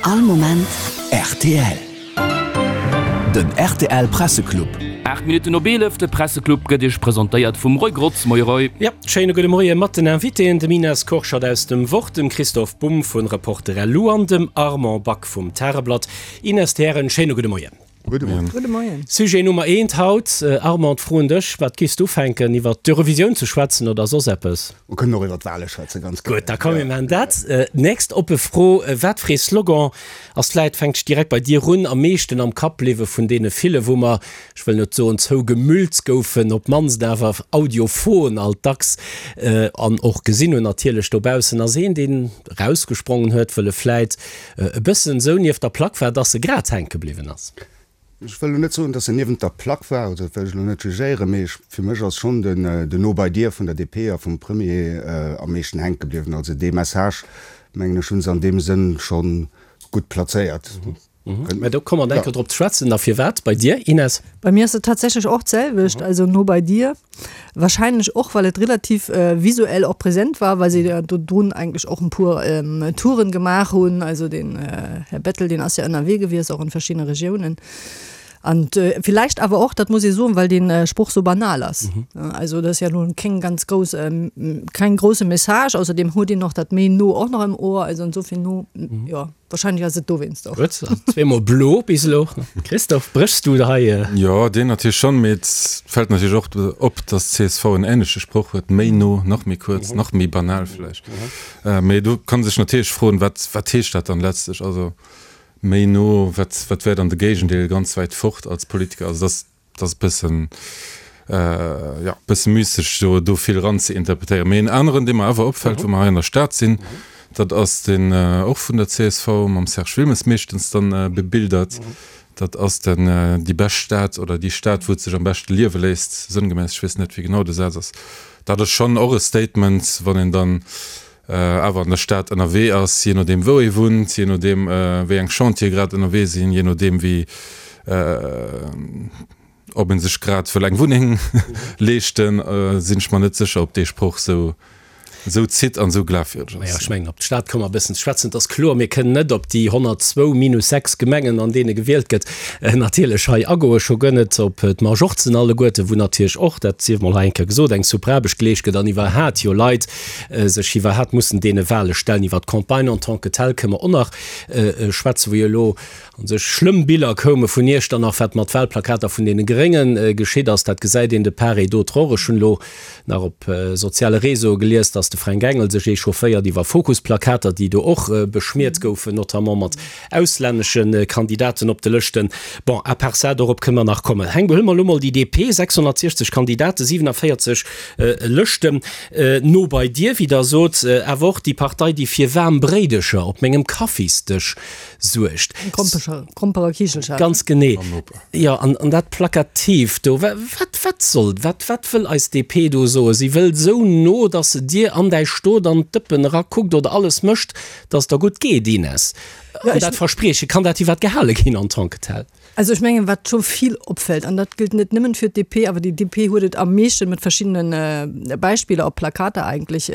All Moment rtl. Den rtl Presseclub. 8 Minutten op 11, de Presseclub gëtt Iech presentéiert vum Roy Grotz. Moie Roy. Ja, schéine gudde Moie mat den Invitéen, dem Ines Kurschat aus dem Wort, dem Christoph Bumb vun Reporter.lu an dem Armand Back vum Tageblatt. Ines, d'Hären, schéine gudde Moien. Gudde Moien. Gudde Moien. Sujet Nummer eent haut, Armand, d'Fro un dech, Wat giffs du ufänken, iwwert d'Eurovisioun ze schwätzen oder soss eppes? Mer kënnen och iwwert d'Wale schwätzen, ganz gär. Gutt, da komm mir maachen dat. Nächst oppe Fro, Wat fir ee Slogan ass, vläit fänkt ech direkt bei dir un, am meeschten am Kapp bliwwe vun deene ville, wou mer, ech wëll net soen zougemüllt goufen, op d'mannst awer audiophon alt dacks an och gesinn hunn natierlech dobaussen, ass een, deen erausgesprongen huet, wëll e vläit e bëssen esou nieft der Plack war, dass e grad hänke bliwwen ass. Ech wëll elo net soen, dass en niewent der Plack war, also dat wëll ech elo net jugéieren, mee ech, fir mech ass schonn den, den No bei dir vun der DP a vum Premier am meeschten hänke bliwwen. Also dee Message, mengen ech, hu se an deem Sënn scho gutt plazéiert. Mä do komme mer enker drop ze schwätzen. A firwat bei dir, Ines? Bei mir ass et tatsächlech och d'selwecht, also No bei dir. Wahrscheinlech och, well et relativ visuell och präsent war, well se jo dodrun eigentlech och en puer Touren gemaach hunn. Also den Här Bettel, deen ass jo ënnerwee gewiescht, och an verschiddene Regiounen. An villäicht awer och, dat muss ee soen, well dee Sproch sou banal ass. Also dat ass jo elo keng ganz grouss, keng grousse Message. Ausserdem huet een och dat méi no och nach am Ohr, also insofern no, jo. Wahrscheinlech ass et dowéinst och. Gutt, also zweemol blo bis elo. Christophe, bréchs du hei? Jo, deen natierlech schonn, mee et fält natierlech och op, datt csv en änleche Sproch huet, méi no, nach méi kuerz, nach méi banal vläicht. Mee do kann ee sech natierlech froen, wat, wat heescht dat dann letztlech? Also méi no, wat, wat wär dann de Géigendeel, ganz wäit fort als Politiker? Also dat ass. Et ass e bëssen, jo, e bësse müsseg do, do vill ran ze interpretéieren. Mee en aneren, dee mer awer opfält, wou mer hei an der Stad sinn, dat ass deen och vun der csv mam Serge Wilmes meeschtens dann bebildert. Dat ass den déi bescht Stad oder déi Stad, wou et sech am beschte liewe léisst, sënngemäss, ech weess net, wéi genau de Saz ass. Dat ass schonn och e Statement, wann een dann awer an der Stad ënnerwee ass, jee nodeem wou ee wunnt, jee nodeem wéi eng Chantiere grad ënnerwee sinn, jee nodeem wéi ob ee sech grad wëll eng Wunneng leeschten, sinn ech mer net sécher, ob dee Sproch esou esou zitt an esou glafwierdeg ass. Naja, ech mengen, op d'Stad komme mer e bëssen ze schwätzen. Et ass kloer, mir kënnen net op déi 102 minus 6 Gemengen, an deene gewielt gëtt, natierlech hei agoen, scho guer net op d'Majorzen alleguerten, wou natierlech och, dat sief mol hei eng Kéier gesot, eng super Aarbecht geleescht gëtt an iwwerhat jo Leit sech iwwerhat mussen deene Wahle stellen. Iwwer d'Campagne en tant que telle kënne mer och nach schwätzen, wou jo elo u sech schlëmm Biller koume vun Iechternach, wat mat Wahlplakater vun deene Grénge geschitt ass. Dat gesäit een de part et d'autre och. Ech hunn elo nach op soziale Réseaue gelies, dass de Fränk Engel sech echaufféiert iwwer Fokus-Plakater, déi do och beschmiert goufen, notamment mat auslännesche Kandidaten op de Lëschten. Bon, à part ça, dorop kënne mer nach kommen. Heng, huele mer elo mol déi DP, 660 Kandidaten, 47 Lëschten. No bei dir, wéi der sot, awer och déi Partei, déi fir waarm Bréidecher op mengem Kaffisdësch suergt. Gromperekichelcher. Ganz genee. Jo, an dat Plakatiivt do, wat, wat soll, wat, wat wëll eis DP do soen? Si wëllt esou no, datt se dir an däi Stot an d'Dëppen erakuckt oder alles mécht, datt et der gutt geet, Ines. An dat Versprieche, kann dat iwwert gehale ginn en tant que tel? Also ech mengen, wat scho vill opfält, an dat gëllt net nëmmen fir d'DP, awer déi DP huet et am meeschten mat verschiddene Beispiller op Plakater eigentlech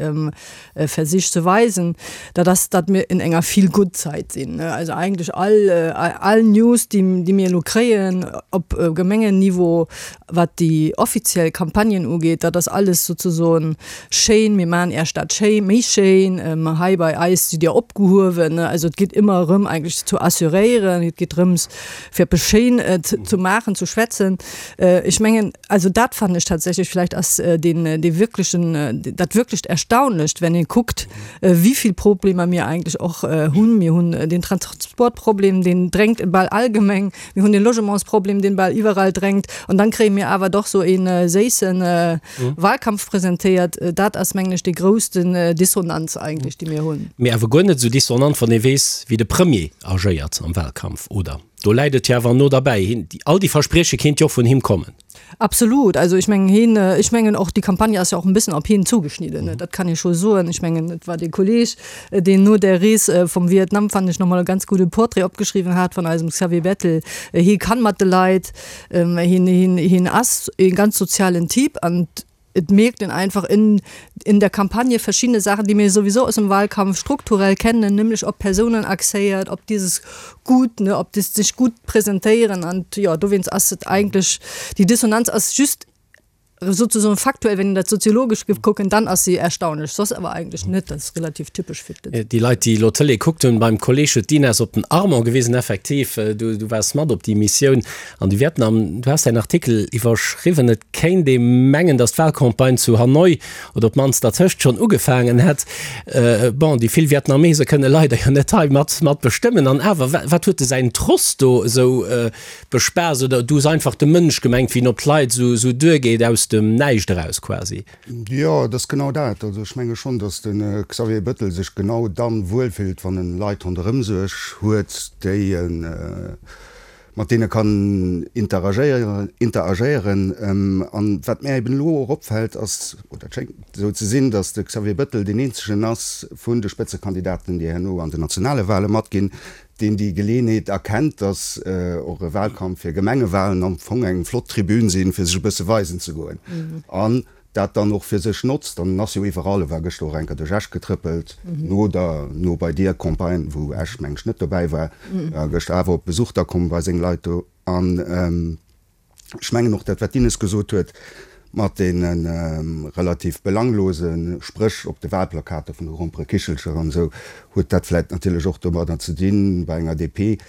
versicht ze weisen, dat ass, datt mir in enger Feel-good-Zait sinn. Also eigentlech all, all News, déi, déi mir elo kréien op Gemengenniveau, wat déi offiziell Campagnen ugeet, dat ass alles souzesoen schéin, mir maachen Är Stad schéi, méi schéin, hei bei eis sidd Dir opgehuewen. Also et geet ëmmer erëm eigentlech ze assuréieren, et geet drëms fir eppes schéin ze maachen, ze schwätzen. Ech mengen, also dat fannen ech tatsächlech, vläicht ass deen dee wirklechen, dat wirklecht Erstaunlecht, wenn ee kuckt, wéi vill Problemer mir eigentlech och hunn. Mir hunn den Transportproblem, deen drängt bal all Gemeng. Mir hunn de Logementsproblem, deen bal iwwerall drängt. An dann kréie mir awer doch sou ee séisse Wahlkampf presentéiert. Dat ass, mengen ech, déi groussten Dissonanz eigentlech, déi mir hunn. Mee awer guer net esou dissonant, wann ee weess, wéi de Premier agéiert am Wahlkampf, oder? Do läit et jo awer no derbäi. Hien, all déi Versprieche kéint jo och vun him kommen. Absolut. Also ech mengen hien, ech mengen och déi Campagne ass jo och en bëssen op hien zugeschnidden, dat kann ee scho soen. Ech mengen et war dee Kolleg, deen no där Rees vum Vietnam, fannen ech, nach mol e ganz gudde Portrait opgeschriwwen hat vun eisem Xavier Bettel. Hie kann mat de Leit, hien, hien, hien ass ee ganz sozialen Typ an. Et mierkt een einfach in, in der Campagne verschiedene Sachen, déi mir sowieso aus dem Wahlkampf strukturell kennen, nämlech op Persounen axéiert, op dieses Gut, ne, op das sech gutt presentéieren an jo, dowéinst ass et eigentlech, déi Dissonanz ass just sozusagen faktuell, wenn een dat soziologesch géif kucken, dann ass se erstaunlech, soss awer eigentlech net, dat ass relativ typesch fir d'Lëtzebuerger. Déi Leit, déi elo d'Tëlee kuckt hunn, beim Kolleg huet d'Ines op den Armand gewisen, effektiv, du, du waars mat op déi Missioun an de Vietnam. Du has däin Artikel iwwerschriwwen, et kéint ee mengen, datt d'Wahlcampagne zu Hanoi oder op d'mannst dertëscht schonn ugefaangen hätt. Bon, déi vill Vietnamese kënne leider jo net hei mat, mat bestëmmen. An awer, wat huet de säin Tross do esou bespaasst? Oder du hues einfach de Mënsch gemengt, wéi en op d'Leit esou, esou duergeet, aus dem Näischt eraus quasi? Jo, et ass genau dat. Also ech menge schonn, datt de Xavier Bettel sech genau dann wuelfillt, wann en Leit ronderëm sech huet, déi en, mat deene kann interagéieren, interagéieren. An wat mär eben elo och opfält ass, oder et schéngt esou ze sinn, datt de Xavier Bettel deen eenzegen ass vun de Spëtzekandidaten, déi herno an den nationale Wahle matginn, deen déi Geleeënheet erkennt, datt och e Wahlkampf fir Gemengewahlen am Fong eng flott Tribün sinn, fir sech e bësse weisen ze goen. An dat dann och fir sech notzt, an en ass jo iwwerall, e war gëschter och eng Kéier duerch Esch getrëppelt, no der No bei dir Campagne, wou Esch meng ech net dobäi war, war gëschter awer op Besuch da komm bei seng Leit do. An ech mengen och dat wat d'Ines gesot huet, mat deene relativ belanglose Spréch op de Wahlplakater vun de Gromperekichelcher an esou, huet dat vläicht natierlech och domadder ze dinn, bei enger DP,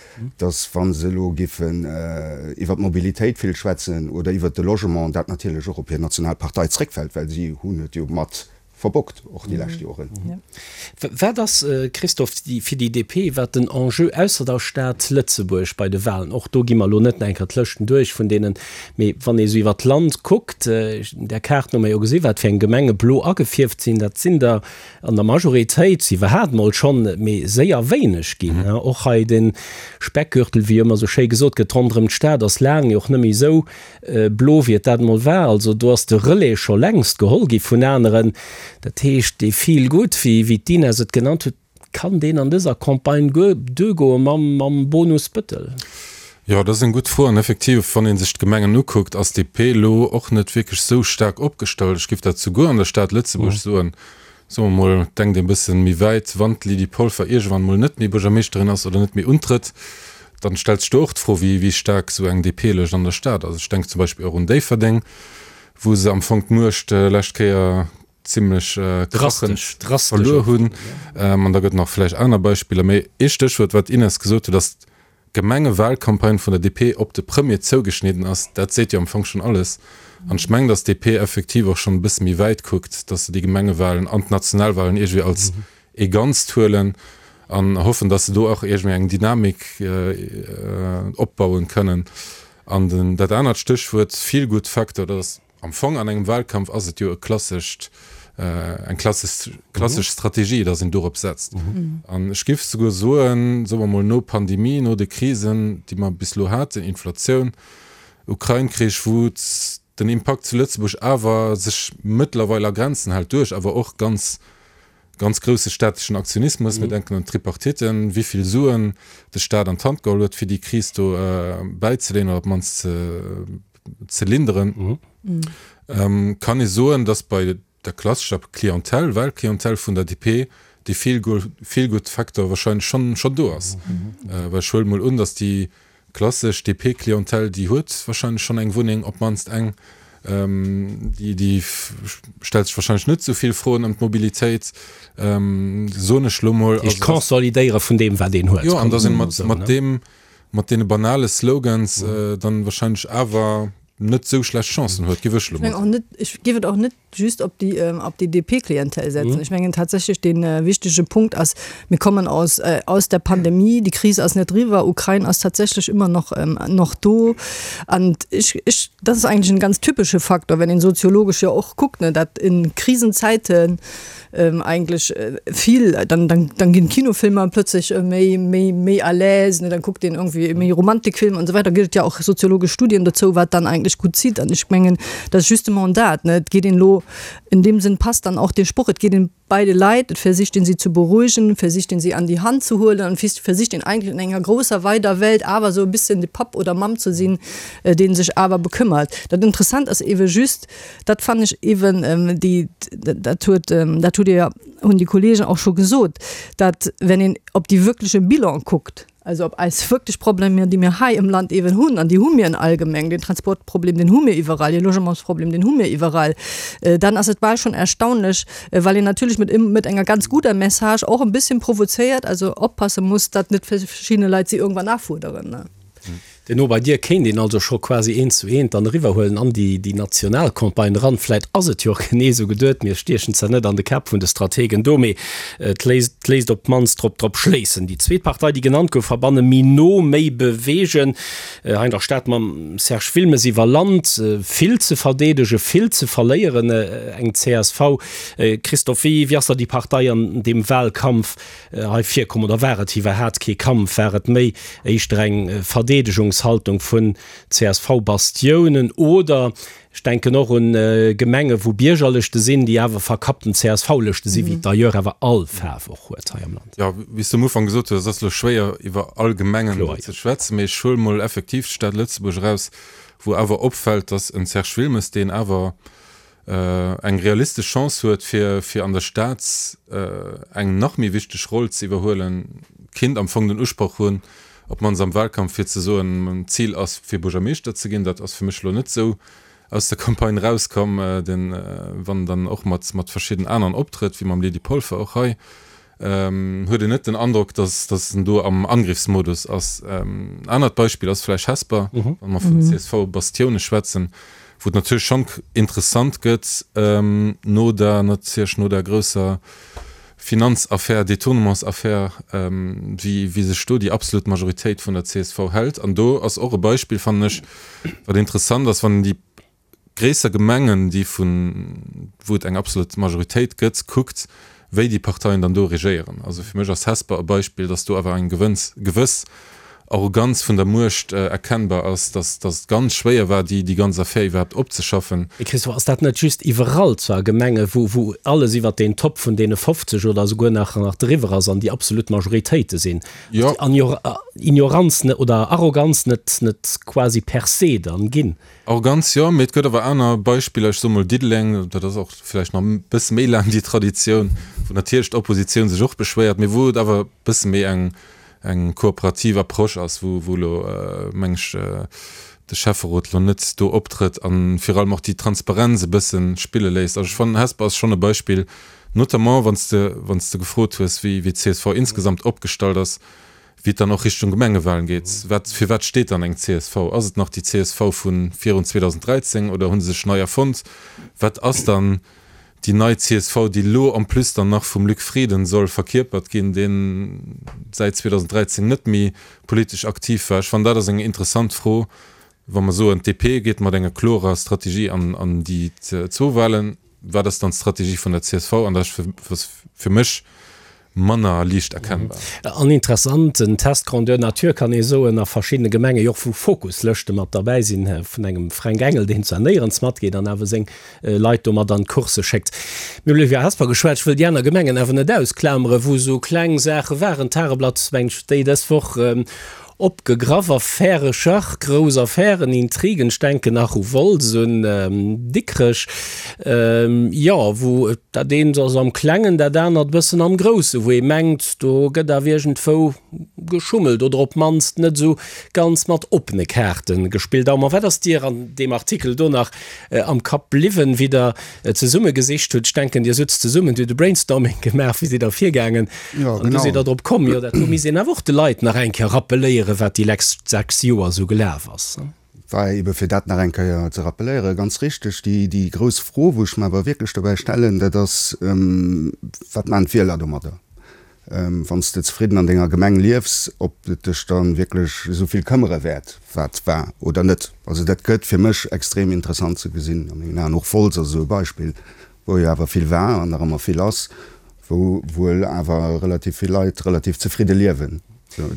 dass wa se elo giffen iwwert d'Mobilitéit vill schwätzen oder iwwert de Logement, dat natierlech och op hir national Partei zréckfält, well si hunn et jo mat verbockt och déi lescht Joren. Wat ass, Christophe, fir déi DP, wat den Enjeu ausser der Stad Lëtzebuerg bei de Wahlen? Och do gi mer elo net nach eng Kéier d'Lëschten duerch vun deenen, mee wann ee sou iwwert d'Land kuckt, där Kaart no mer jo gesi wat fir eng Gemenge blo agefierft sinn, dat sinn der An der Majoritéit si iwwerhaapt mol schonn méi séier wéineg ginn. Och hei de Speckgürtel, wéi ëmmer sou schéi gesot gëtt, ronderëm d'Stad ass laang jo och net méi esou blo, wéi et dat emol war. Also do ass de Relais scho längst geholl gi vun aneren. Dat heescht, dee Feel good, wéi d'Ines et genannt huet, kann deen an dëser Campagne guer duergoe mam Bonus Bëttel? Jo, dat ass eng gutt Fro. An effektiv, wann ee sech d'Gemengen ukuckt, ass DP elo och net wierklech esou staark opgestallt. Ech géif dat souguer an der Stad Lëtzebuerg soen. Soe mer mol, denkt ee bësse méi wäit, wann d'Lydie Polfer iergendwann mol net méi Buergermeeschterin ass oder net méi untrëtt, dann stellt sech do och d'Fro, wéi wéi staark esou eng DP-Lëscht an der Stad ass. Ech denken zum Beispill och un Déifferdeng, wou se am Fong d'Muecht lescht Kéier zimlech krachend verluer hunn. An da gëtt nach vläicht aner Beispiller. Mee ee Stéchwuert, wat d'Ines gesot huet, ass d'Gemengewahlcampagne vun der DP op de Premier zougeschnidden ass. Dat seet jo am Fong schonn alles. An ech mengen, datt d'DP effektiv och schonn e bësse méi wäit kuckt, datt se déi Gemengewahlen an d'Nationalwahlen iergendwéi als ee Ganzt huelen an hoffen, datt se do och iergendwéi eng Dynamik opbauen kënnen. An dat anert Stéchwuert, Feel-good-Factor, dat ass, Am Fong an engem Wahlkampf ass et jo e klassescht, eng klassesch, klassesch Strategie, datt een dorop setzt. An ech géif souguer soen, soe mer mol no Pandemie, no de Krisen, déi mer bis elo haten, Inflatioun, Ukrain-Krich, wou den Impakt zu Lëtzebuerg awer sech mëttlerweil a Grenzen hält, duerch awer och ganz Ganz grousse staatlechen Aktionismus, mir denken an d'Tripartiten, wéi vill Suen de Staat an d'Hand geholl huet, fir déi Kris do bäizeleeën oder op d'mannst ze linderen, kann ee soen, datt bei der klassescher Clientèle, Wahlclientèle vun der DP dee Feel-Good-Factor wahrscheinlech schonn do ass. Well ech huele mol un, datt déi Klassesch DP-Clientèle, déi huet wahrscheinlech schonn eng Wunneng, op d'mannst eng. Déi, déi stellt sech wahrscheinlech net esou vill Froen ëm d'Mobilitéit, soen ech elo mol. Heescht Consolidéiere vun deem, wat een huet. Jo, an dass een mat, mat deem, mat deene banale Slogans dann wahrscheinlech awer net esou schlecht Chancen huet, géif ech elo mol soen. Ech géif et och net just op déi, op déi DP-Klientel setzen. Ech mengen tatsächlech dee wichtege Punkt ass, mir kommen aus, aus der Pandemie, déi Kris ass net eriwwer, Ukrain ass tatsächlech ëmmer noch, noch do. An ech, ech, dat ass eigentlech en ganz typesche Faktor, wenn een soziologesch jo och kuckt, ne, dat in Krisenzeiten eigentlech vill, dann, dann, dann ginn d'Kinofilmer plötzlech méi, méi, méi à l'aise, ne, dann kuckt een irgendwie méi Romantikfilmer an esou weider. Gëtt et jo och soziologesch Studien dozou, wat dann eigentlech. eigentlich gutt zitt. An ech mengen, dat ass justement dat, ne, et geet een elo, in deem Sënn passt dann och dee Sproch, et geet een bei de Leit, et versicht een si ze beruhigen, versicht een si an déi Hand ze huelen an versicht een eigentlich in enger grousser weider Welt awer esou e bisschen de Papp oder Mamm ze sinn, dee sech awer bekëmmert. Dat Interessant ass ewe just, dat fannen ech ewen déi, dat huet, dat hutt Dir, hunn déi Kollegen och scho gesot, dat wenn een op déi wirkleche Bilan kuckt, also op eis wierklech Problemer, déi mir hei im Land ewen hunn, an déi hu mir en allgemeng, den Transportproblem, deen hu mir iwwerall, de Logementsproblem, deen hu mir iwwerall, dann ass et bal schon erstaunlech, well een natierlech mit, mit enger ganz guter Message och en bisschen provozéiert, also oppasse muss, datt net verschiedene Leit si irgendwann nachfuerderen. Den No bei dir kéint een also scho quasi eent zu eent dann eriwwerhuelen an déi déi national Campagne eran. Vläit ass et jo och genee esou geduet, mir stiechen zwar net an de Käpp vun de Strategen do, mee et léisst et léisst op d'mannst drop drop schléissen. Déi zweet Partei, déi genannt gouf, verbanne méi no, méi beweegen. Hei an der Stad mam Serge Wilmes iwwer Land, vill ze verdeedegen, vill ze verléieren, eng csv. Christophe, wéi wéi ass da déi Partei an deem Wahlkampf hei virkomm oder war et iwwerhaat kee Kampf, war et méi éischter eng Verdeedegungshaltung vun CSV-Bastiounen oder, ech denken och un Gemenge wou Biergerlëschte sinn, déi awer verkappten CSV-Lëschte sinn, wéi et d'ailleurs awer all Faarf och huet hei am Land. Jo, wéi s de am Ufank gesot hues, et ass elo schwéier iwwer all Gemengen do ze schwätzen, mee ech huele mol effektiv d'Stad Lëtzebuerg eraus, wou awer opfält, datt en Serge Wilmes, deen awer eng realistesch Chance huet, fir fir an der Stad eng nach méi wichteg Roll ze iwwerhuelen, kinnt am Fong den Usproch hunn, op d'mannst am Wahlkampf, fir ze soen, d'Zil ass fir Buergermeeschter ze ginn. Dat ass fir mech elo net esou aus der Campagne erauskomm, den wann en dann och mat mat verschidden aneren optrëtt, wéi mam Lydie Polfer och hei, huet een net den Androck, dass dass en do am Angriffsmodus ass. En anert Beispill ass vläicht Hesper, wa mer vun CSV-Bastioune schwätzen, wou et natierlech schonn interessant gëtt no der natierlech no der grousser Finanzaffär, Détournementsaffär, wéi wéi sech do déi absolut Majoritéit vun der csv hält. An do ass och e Beispill, fannen ech, wat interessant ass, wann een déi gréisser Gemengen, déi vun, wou et eng absolut Majoritéit gëtt, kuckt, wéi déi Parteien dann do regéieren. Also fir mech ass Hesper e Beispill, datt do awer eng gewënns, gewëss Arroganz vun der Muecht erkennbar ass, datt, datt et ganz schwéier war, déi, déi ganz Affär iwwerhaapt opzeschaffen. Mee Christophe, ass dat net just iwwerall zwar Gemenge wou, wou alles iwwert deen Top vun deene 50 oder esouguer nach, nach driwwer ass an déi absolut Majoritéite sinn? Jo. Ass déi Ignoranz net oder Arroganz net, net quasi per se dann ginn? Arroganz jo, mee et gëtt awer aner Beispiller, ech soe mol Diddeleng, dat ass och vläicht nach e bësse méi laang déi Traditioun, wou natierlech d'Oppositioun sech och beschwéiert, mee wou et awer e bësse méi eng eng kooperativ Approche ass, wou wou elo, meng ech, de Schäfferot elo net do optrëtt a virun allem och déi Transparenz e bësse spille léisst. Also ech fannen, Hesper ass schonn e Beispill, notamment wann s de wann s de gefrot hues, wéi wéi d'CSV insgesamt opgestallt ass, Wéi et dann och Richtung Gemengewahlen geet, wat, fir wat steet dann eng csv? Ass et nach déi csv vu virun 2013 oder hu se sech nei erfonnt? Wat ass dann déi nei csv, déi elo en plus dann nach vum Luc Frieden soll verkierpert ginn, dee säit 2013 net méi politesch aktiv war? Ech fannen, dat ass eng interessant Fro, wa mer soen, d'DP geet mat enger klorer Strategie an déi zwou Wahlen. Wat ass dann d'Strategie vun der csv? An dat ass fir mech manner liicht erkennbar. An interessant, en Test grandeur nature kann ee soen, a verschiddene Gemenge jo och, wou Fokuslëschte mat derbäi sinn, vun engem Fränk Engel, deen zwar néierens matgeet an awer seng Leit do mat an d'Course schéckt. Mir hunn elo iwwer Hesper geschwat, ech wëll déi aner Gemengen awer net ausklameren, wou esou kleng Saache waren. D'Tageblatt, mengen ech, déi dës Woch Opgegraff, Affäre Schach, grouss Affären, Intrigen, ech denken nach u Wolz, un Dikrech, jo, wou dat eent ass am Klengen, dat anert e bëssen am Groussen, wou ee mengt, do gëtt awer iergendwou geschummelt oder op d'mannst net esou ganz mat oppene Kaarte gespillt. Armand, wat ass dir an deem Artikel do nach am Kapp bliwwen, wéi Der zesumme gesicht hutt, ech denken Dir sutzt zesummen, Dir hutt e Brainstorming gemaach, wéi sidd Der virgaangen? Jo, An du sidd Der drop komm, jo dat do misst een awer och de Leit nach eng Kéier rappeléieren, wat déi lext 6 Joer esou gelaf ass. War ebe fir dat nach eng Kéier ze rappeléieren, ganz richteg. Déi, déi grouss Fro, wou ech mer awer wierklech dobäi stellen, dat ass, Wat maachen d'Wieler domadder? Wann s de zefridden an denger Gemeng liefs, ob et dech dann wierklech esou vill këmmere wäert, wat war oder net. Also dat gëtt fir mech extrem interessant ze gesinn a mengen Aen. Och Wolz ass esou e Beispill, wou jo awer vill war an nach ëmmer vill ass, wou wuel awer relativ vill Leit relativ zefridde liewen.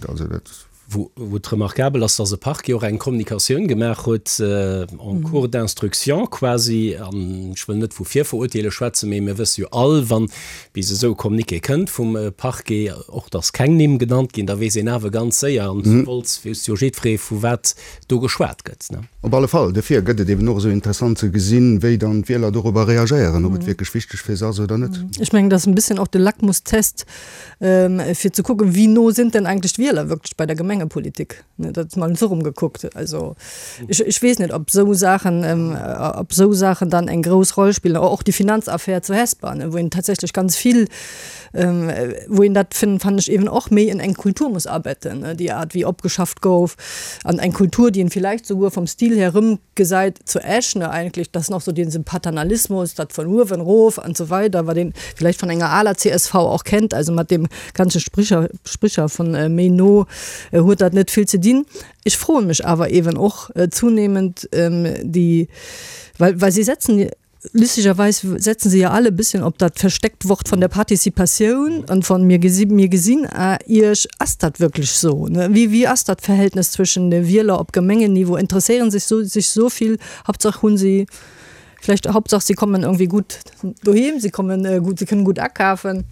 Also dat. Wou et remarquabel ass, dass e Parquet och eng Kommunikatioun gemaach huet en cours d'instruction quasi, an ech wëll net vu Virverurteele schwätzen, mee mir wësse jo all, wann bis esou e Communiqué kënnt vum Parquet, och dass keng Nimm genannt ginn, da weess een awer ganz séier, an zu Wolz weess jo jiddweree vu wat do geschwat gëtt. Op alle Fall. Dofir gëtt et eben och esou interessant ze gesinn, wéi dann d'Wieler dorobber reagéieren, ob et wierklech wichteg fir se ass oder net. Ech mengen, dat ass en bësschen och de Lackmustest, fir ze kucken, wie no sind denn eigentlich d'Wieler wirklich bei der Gemengepolitik. Dat ass mol esou rum gekuckt. Also ech, ech weess net, ob esou Saachen, ob esou Saachen dann eng grouss Roll spillen. Och déi Finanzaffär zu Hesper, wou een tatsächlech ganz vill, wou een dat finn, fannen ech eben och méi in eng Kultur muss abetten, déi Art wéi opgeschafft gouf an eng Kultur, déi een vielleicht souguer vom Stil her rëmgesäit zu Esch, ne, eigentlich, das noch so diesen Paternalismus, dat von uewen rof an so weider, wat een vielleicht von enger aler csv och kennt, also mat deem ganze Spricher, Spricher von méi no huet dat net vill ze dinn. Ech froe mech awer eben och zunehmend déi, well, well si setzen, Lustigerweis setzen se ja alle e bisschen op dat versteckt Wort von der Partizipatioun an von mir gesi mir gesinn Iech. Ass dat wierklech sou? Wéi wéi ass dat Verhältnis zwëschen de Wieler op Gemengenniveau? Interesséieren sech sou sech sou vill? Hauptsache hunn si vläicht Hauptsache sie kommen irgendwie gut doheem, sie kommen gut, sie kënnen gut akafen.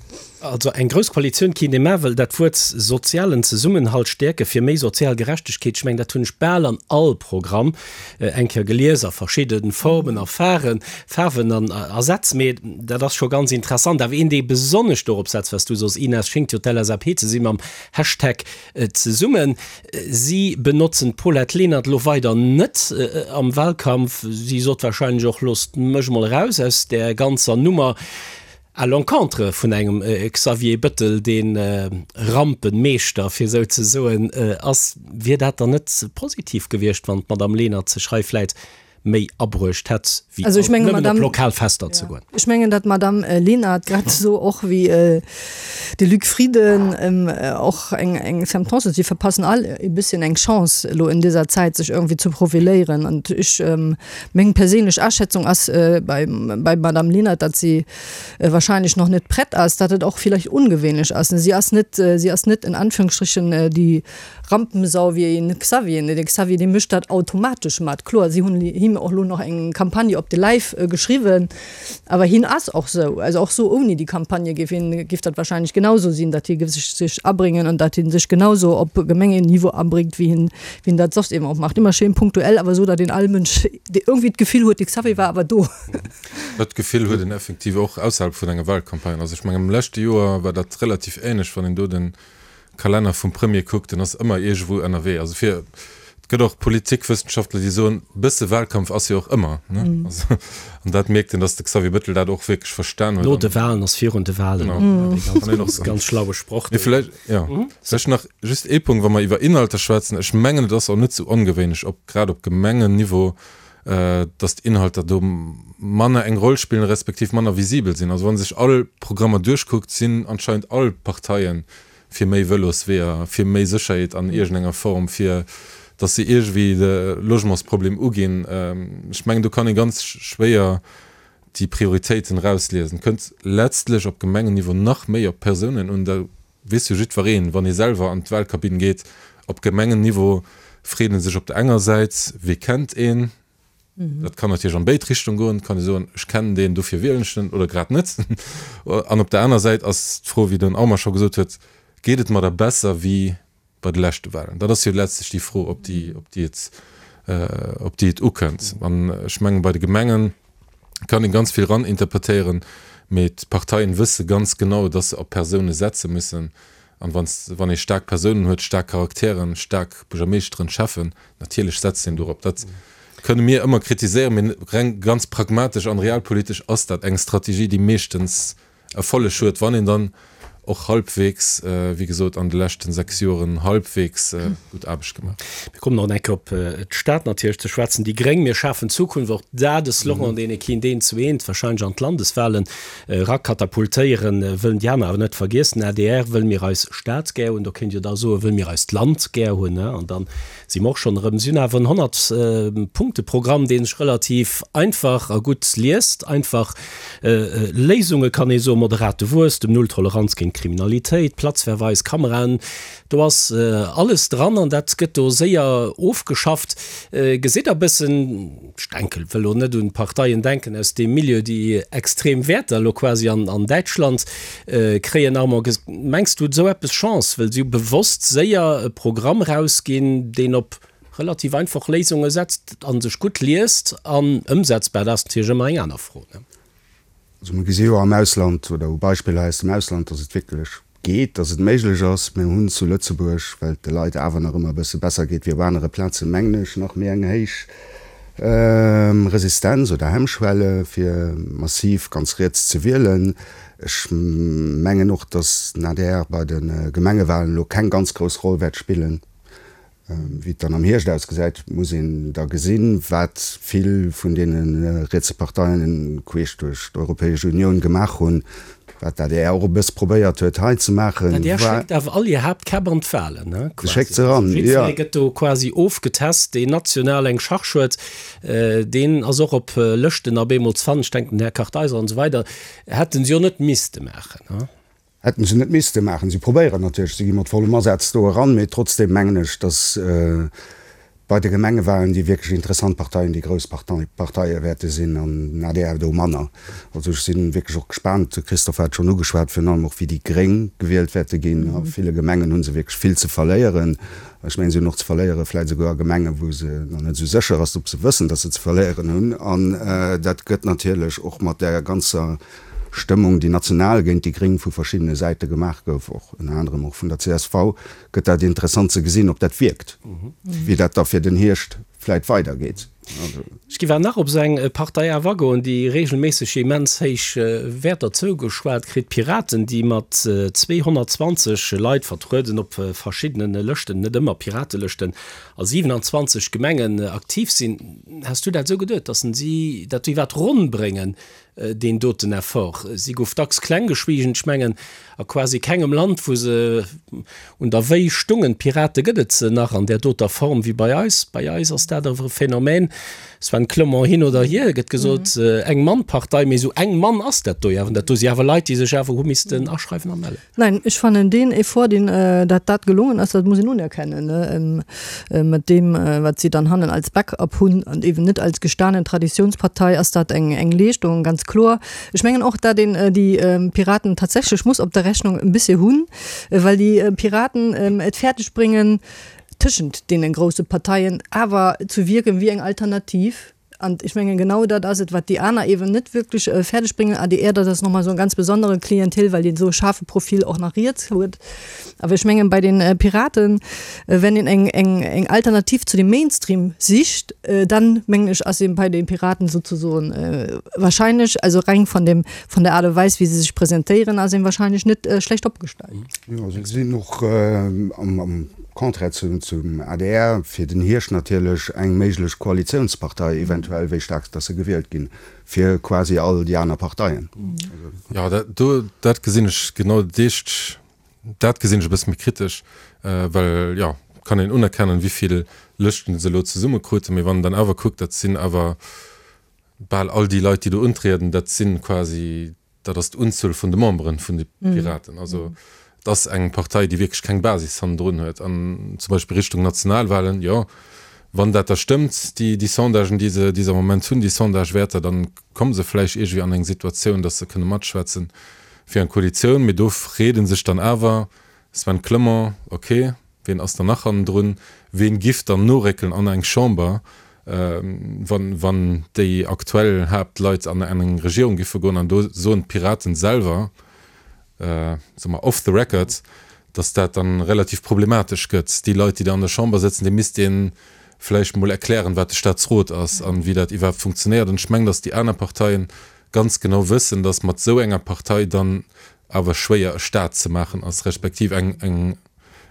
Also eng grouss Koalitioun kéint ee maachen, well dat Wuert sozialen Zesummenhalt stäerke fir méi sozial Gerechtegkeet, ech mengen, dat hunn ech bal an all Programm eng Kéier gelies, a verschidde Formen a Faren, Faarwen an a Sätz. Mee dat ass scho ganz interessant. Awer een, dee besonnesch dorop setzt, wat s du sos, Ines, schéngt jo d'LSAP ze si mam Hashtag zesummen. Si benotzen d'Paulette Lenert elo weider net am Wahlkampf. Si sot wahrscheinlech och, Loosst mech mol eraus aus där ganzer Nummer. À l'encontre vun engem Xavier Bëttel, dee Rampenmeeschter, fir esou ze soen, ass. Wier dat dann net positiv gewiescht, wann d'Madame Lenert sech hei vläit méi abruecht hätt, wéi alt nëmmen op lokal Fester ze goen? Ech mengen, datt d'Madame Lenert grad esou och wéi de Luc Frieden och eng Sentence, si verpassen all e bësschen eng Chance elo in dieser Zäit, sech irgendwie ze profiléieren. An ech, meng perséinlech Aschätzung ass bei Madame Lenert, datt si wahrscheinlech noch net prett ass, datt et och villäicht ungewéinlech ass. Si ass net, si ass net in Anführungsstrichen déi Rampensau wéi een Xavier. De Xavier dee mécht dat automatesch mat. Kloer, si hunn him och elo nach eng Campagne op de Läif geschriwwen, awer hien ass och sou. Also och sou ouni déi Campagne géif hien, géif dat wahrscheinlech genauso sinn, datt hie sech sech abréngen an datt hie sech genauso op Gemengeniveau abréngt, wéi hien, wéi hien dat soss eben och macht. Ëmmer schéin punktuell, awer esou, datt een all Mënsch irgendwie d'Gefill huet, de Xavier war awer do. Dat Gefill huet een effektiv och ausserhalb vun enger Wahlcampagne. Also ech mengen am leschte Joer war dat relativ ähnlech, wann een do de Kalenner vum Premier kuckt, en ass ëmmer iergendwou ënnerwee. Also fir, et gëtt och Politikwëssenschaftler, déi soen, e bësse Wahlkampf ass jo och ëmmer, ne? Also, an dat mierkt een, datt de Xavier Bettel dat och wierklech verstan huet. No de Wahlen ass virun de Wahlen. Genau. Dee ganz grouss, ganz schlaue Sproch do. Mee vläicht, jo, vläicht nach just ee Punkt, wa mer iwwer Inhalter schwätzen. Ech mengen, et ass och net sou ongewéinlech, op, grad op Gemengenniveau, dass d'Inhalter do manner eng Roll spillen, respektiv manner visibel sinn. Also wa sech all Programmer duerchkuckt, sinn anscheinend all Parteien fir méi Vëlosweeër, fir méi Sécherheet an iergendenger Form, fir dass se iergendwéi de Logementsproblem uginn. Ech mengen, do kann ee ganz schwéier déi Prioritéiten erausliesen. Et kënnt letztlech op Gemengenniveau nach méi op d'Persounen un. Da weess jo jiddwereen, wann ee selwer an d'Wahlkabinn geet, op Gemengenniveau freet ee sech op der enger Säit, Wie kennt een? Dat kann natierlech an béid Richtung goen. Et kann ee soen, Ech kennen deen, dofir wielen ech den, oder grad net. An op der aner Säit ass d'Fro, wéi den Armand scho gesot huet, Geet et mer da besser wéi bei de leschte Wahlen? Dat ass jo letztlech déi Fro, op déi, op déi et, op déi et ukënnt. An ech mengen, bei de Gemengen kann ee ganz vill eraninterpretéieren, mee d'Parteien wësse ganz genau, dass se op Persoune setze müssen. An wann, wann ee staark Persounen huet, staark Charakteren, staark Buergermeeschteren, Schäffen, natierlech setzt een dorop. Dat kënne mir ëmmer kritiséieren, mee reng ganz pragmatesch an realpolitesch ass dat eng Strategie, déi meeschtens Erfolleg huet, wann een dann och halbwegs, wéi gesot, an de leschten 6 Joren halbwegs gutt Aarbecht gemaach huet. Mir kommen nach eng Kéier op d'Stad natierlech ze schwätzen. Déi Gréng, mir schafen Zukunft, och dat e Slogan, deen ee kéint eent zu eent wahrscheinlech an d'Landeswahlen erakatapultéieren, wëllen déi aner awer net vergiessen. Adr wëll mir eis Stad gär hunn, do kéint Dir da soen, wëll mir eist Land gär hunn, an dann Si mer och schonn erëm. Si hunn awer en 100 Punkte Programm, dee sech relativ einfach a gutt liest. Einfach Léisunge kann ee soen, moderate Wuesstem, Null Toleranz géint. Kriminalitéit, Platzverweis, Kameraen, do ass alles dran an dat gëtt do séier ofgeschafft. Gesitt Der e bëssen, ech denken, wëll elo net un Parteien denken aus deem Milieu, déi extrem Wäerter elo quasi an Däitschland kréien, Armand, mengs du, huet esou eppes Chance, wëll si hu bewosst séier e Programm erausginn, deen op relativ einfach Léisunge setzt a sech gutt liest an ëmsetzbar, dat ass natierlech ëmmer eng aner Fro. Also mir gesi jo am Ausland oder u Beispiller aus dem Ausland, datt et wierklech geet, datt et méiglech ass. Mir hunn zu Lëtzebuerg, well et de Leit awer nach ëmmer e bësse besser geet wéi op anere Plazen, mengen ech, nach méi eng héich Resistenz oder Hemmschwelle fir massiv ganz riets ze wielen. Ech mengen och, datt den adr bei de Gemengewahlen elo keng ganz grouss Roll wäert spillen. Wéi et dann am Hierscht ausgesäit, muss een da gesinn. Wat vill vun deene rietse Parteien queesch duerch d'Europäesch Unioun gemaach hunn, wat d'ADR och e bësse probéiert huet hei ze maachen, war. D'ADR schéckt awer all hir Haaptkäpp an d'Wahlen, ne? Se schéckt se eran, jo. Jiddweree gëtt do quasi ofgetest, deen national eng Charge huet, deen ass och op Lëschten op eemol ze fannen. Ech denken, den Här Kartheiser an esou weider hätte se jo net misste maachen, ne? Hätten se net misste maachen. Si probéieren natierlech, si gi mat vollem Asaz do eran, mee trotzdeem mengen ech, datt bei de Gemengewahlen déi wierklech interessant Parteien déi grouss Parteie wäerte sinn an den adr do manner. Also ech si wierklech och gespaant, de Christophe hat et schonn ugeschwat, virun allem och wéi déi Gréng gewielt wäerte ginn. A ville Gemengen hu se wierklech vill ze verléieren. Ech mengen, si hunn och ze verléiere vläicht esouguer a Gemengen, wou se nach net esou sécher ass, ob se wëssen, datt se ze verléieren hunn. An dat gëtt natierlech och mat där ganzer Stëmmung, déi national géint déi Gréng vu verschiddene Säite gemaach gouf, och ënner anerem och vun der csv, gëtt dat interessant ze gesinn, ob dat wierkt, wéi dat da fir den Hierscht vläit weidergeet. Ech géif awer nach op esou eng Partei awer agoen, déi regelméisseg immens héich Wäerter zougeschwat kritt, d'Piraten, déi mat 220 Leit vertrueden op verschiddene Lëschten, net ëmmer Piratelëschten, a 27 Gemengen aktiv sinn. Has du dat esou geduet, datt si dat iwwerhaapt ronn bréngen, deen doten Effort. Si gouf dacks kleng geschwiegen. Ech mengen, a quasi kengem Land, wou se un der Wéi stungen, d'Pirate, gëtt et se nach an där doter Form wéi bei eis. Bei eis ass dat awer e Phänomen, Sven Clement hin oder hier, gëtt gesot, Eng-Mann-Partei, mee esou eng Mann ass dat do jo awer. Dat do si awer Leit, déi sech awer hu missten aschreiwen a mellen. Nein, ech fannen deen Effort, deen, dat dat gelongen ass, dat muss een unerkennen, mat deem, wat si dann hannen als Backup hunn an eben net als gestanen Traditionspartei, ass dat eng, eng Leeschtung, ganz kloer. Ech mengen och, dat een déi Piraten tatsächlech muss op der Rechnung e bëssche hunn, well déi Piraten et fäerdeg bréngen, tëschent deene grousse Parteien awer ze wierken wéi eng Alternativ. An ech mengen, genau dat ass et, wat déi aner eeben net wierklech fäerdeg bréngen. Adr, dat ass nochmol esou e ganz besondere Klientel, well deen esou e schaarfe Profil och nach riets huet. Awer ech mengen, bei den Piraten, wenn een eng, eng, eng Alternativ zu dem Mainstream sicht, dann, mengen ech, ass een bei den Piraten souzesoen wahrscheinlech, also reng von dem, von der Art und Weis, wéi se sech presentéieren, ass een wahrscheinlech net schlecht opgestallt. Jo, se sinn och am Contraire zum adr fir den Hierscht natierlech eng méiglech Koalitiounspartei, eventuell, wéi staark dass se gewielt ginn, fir quasi all déi aner Parteien. Jo, dat do, dat gesinn ech genau dat éischt, dat gesinn ech e bësse méi kritesch, well, jo, kann een unerkennen, wéi vill Lëschten se elo zesummekruten, mee wann een dann awer kuckt, dat sinn awer bal all déi Leit, déi do untrieden, dat si quasi Dat ass d'Unzuel vun de Memberen vun de Piraten. Also et ass eng Partei, déi wierklech keng Basis hannendrun huet. An zum Beispill Richtung Nationalwahlen, jo, wann dat da stëmmt, déi, déi Sondagen, déi se, déi se am Moment hunn, déi Sondagewäerter, dann komme se vläicht iergendwéi an eng Situatioun, datt se kënne matschwätzen fir eng Koalitioun. Mee do freet ee sech dann awer, Sven Clement, Ok, wien ass dann nach hannendrun? Ween giff dann noréckelen an eng Chamber, wann, wann déi aktuell Haaptleit an eng Regierung giffe goen? An do soen d'Piraten selwer, soe mer off the record, datt dat dann relativ problematesch gëtt. Déi Leit, déi da an der Chamber sëtzen, deene misst ee vläicht mol erklären, wat de Staatsrot ass an wéi dat iwwerhaapt funktionéiert. An ech mengen, datt déi aner Parteien ganz genau wëssen, datt mat esou enger Partei dann awer schwéier e Staat ze maachen ass, respektiv eng, eng,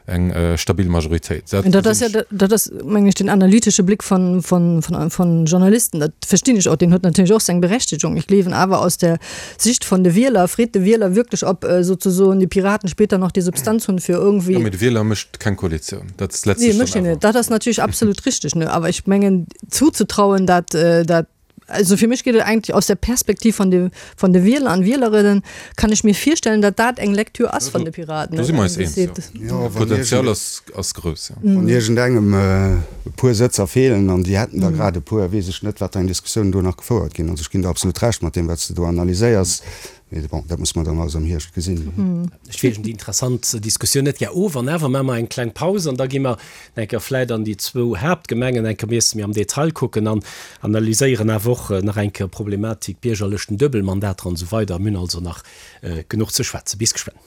eng stabil Majoritéit. Dat dat ass ja, dat ass, meng ech, den analytesche Blick von, von, von, von Journalisten. Dat verstinn ech och, deen huet natierlech och seng Berechtigung. Ech gleewen awer aus der Sicht von de Wieler, freet de Wieler wierklech, ob sozusoen die Piraten später noch die Substanz hunn, fir irgendwie. Jo, mee de Wieler mécht keng Koalitioun. Dat ass letztlech dann awer. Nee, mécht hien net. Dat ass natierlech absolut richteg, ne. Awer ech mengen, zuzetrauen, dat, dat. Also fir mech geet et eigentlech aus der Perspektiv von de, von de Wieler an Wielerinnen, kann ech mir virstellen, datt dat eng Lektür ass von de Piraten. Do si mer eis eens, jo. Jo, wann D'Potenzial iergend, ass, ass grouss, jo. wann iergendengem e puer Sëtzer feelen, an déi hätten der grad e puer, weess ech net, wat fir eng Diskussioun do nach gefouert ginn. Also ech ginn der absolut Recht mat deem, wat s de do analyséiers. Mee bon, dat musse mer dann alles am Hierscht gesinn. Ech wiergen déi interessant Diskussioun net gär of. An awer maache mer eng kleng Paus an da gi mer eng Kéier vläit an déi zwou Haaptgemengen eng Kéier miesse méi am Detail kucken an analyséieren awer och nach eng Kéier d'Problematik Biergerlëschten, Duebelmandater an esou weider. Mir hunn also nach genuch ze schwätzen. Bis geschwënn.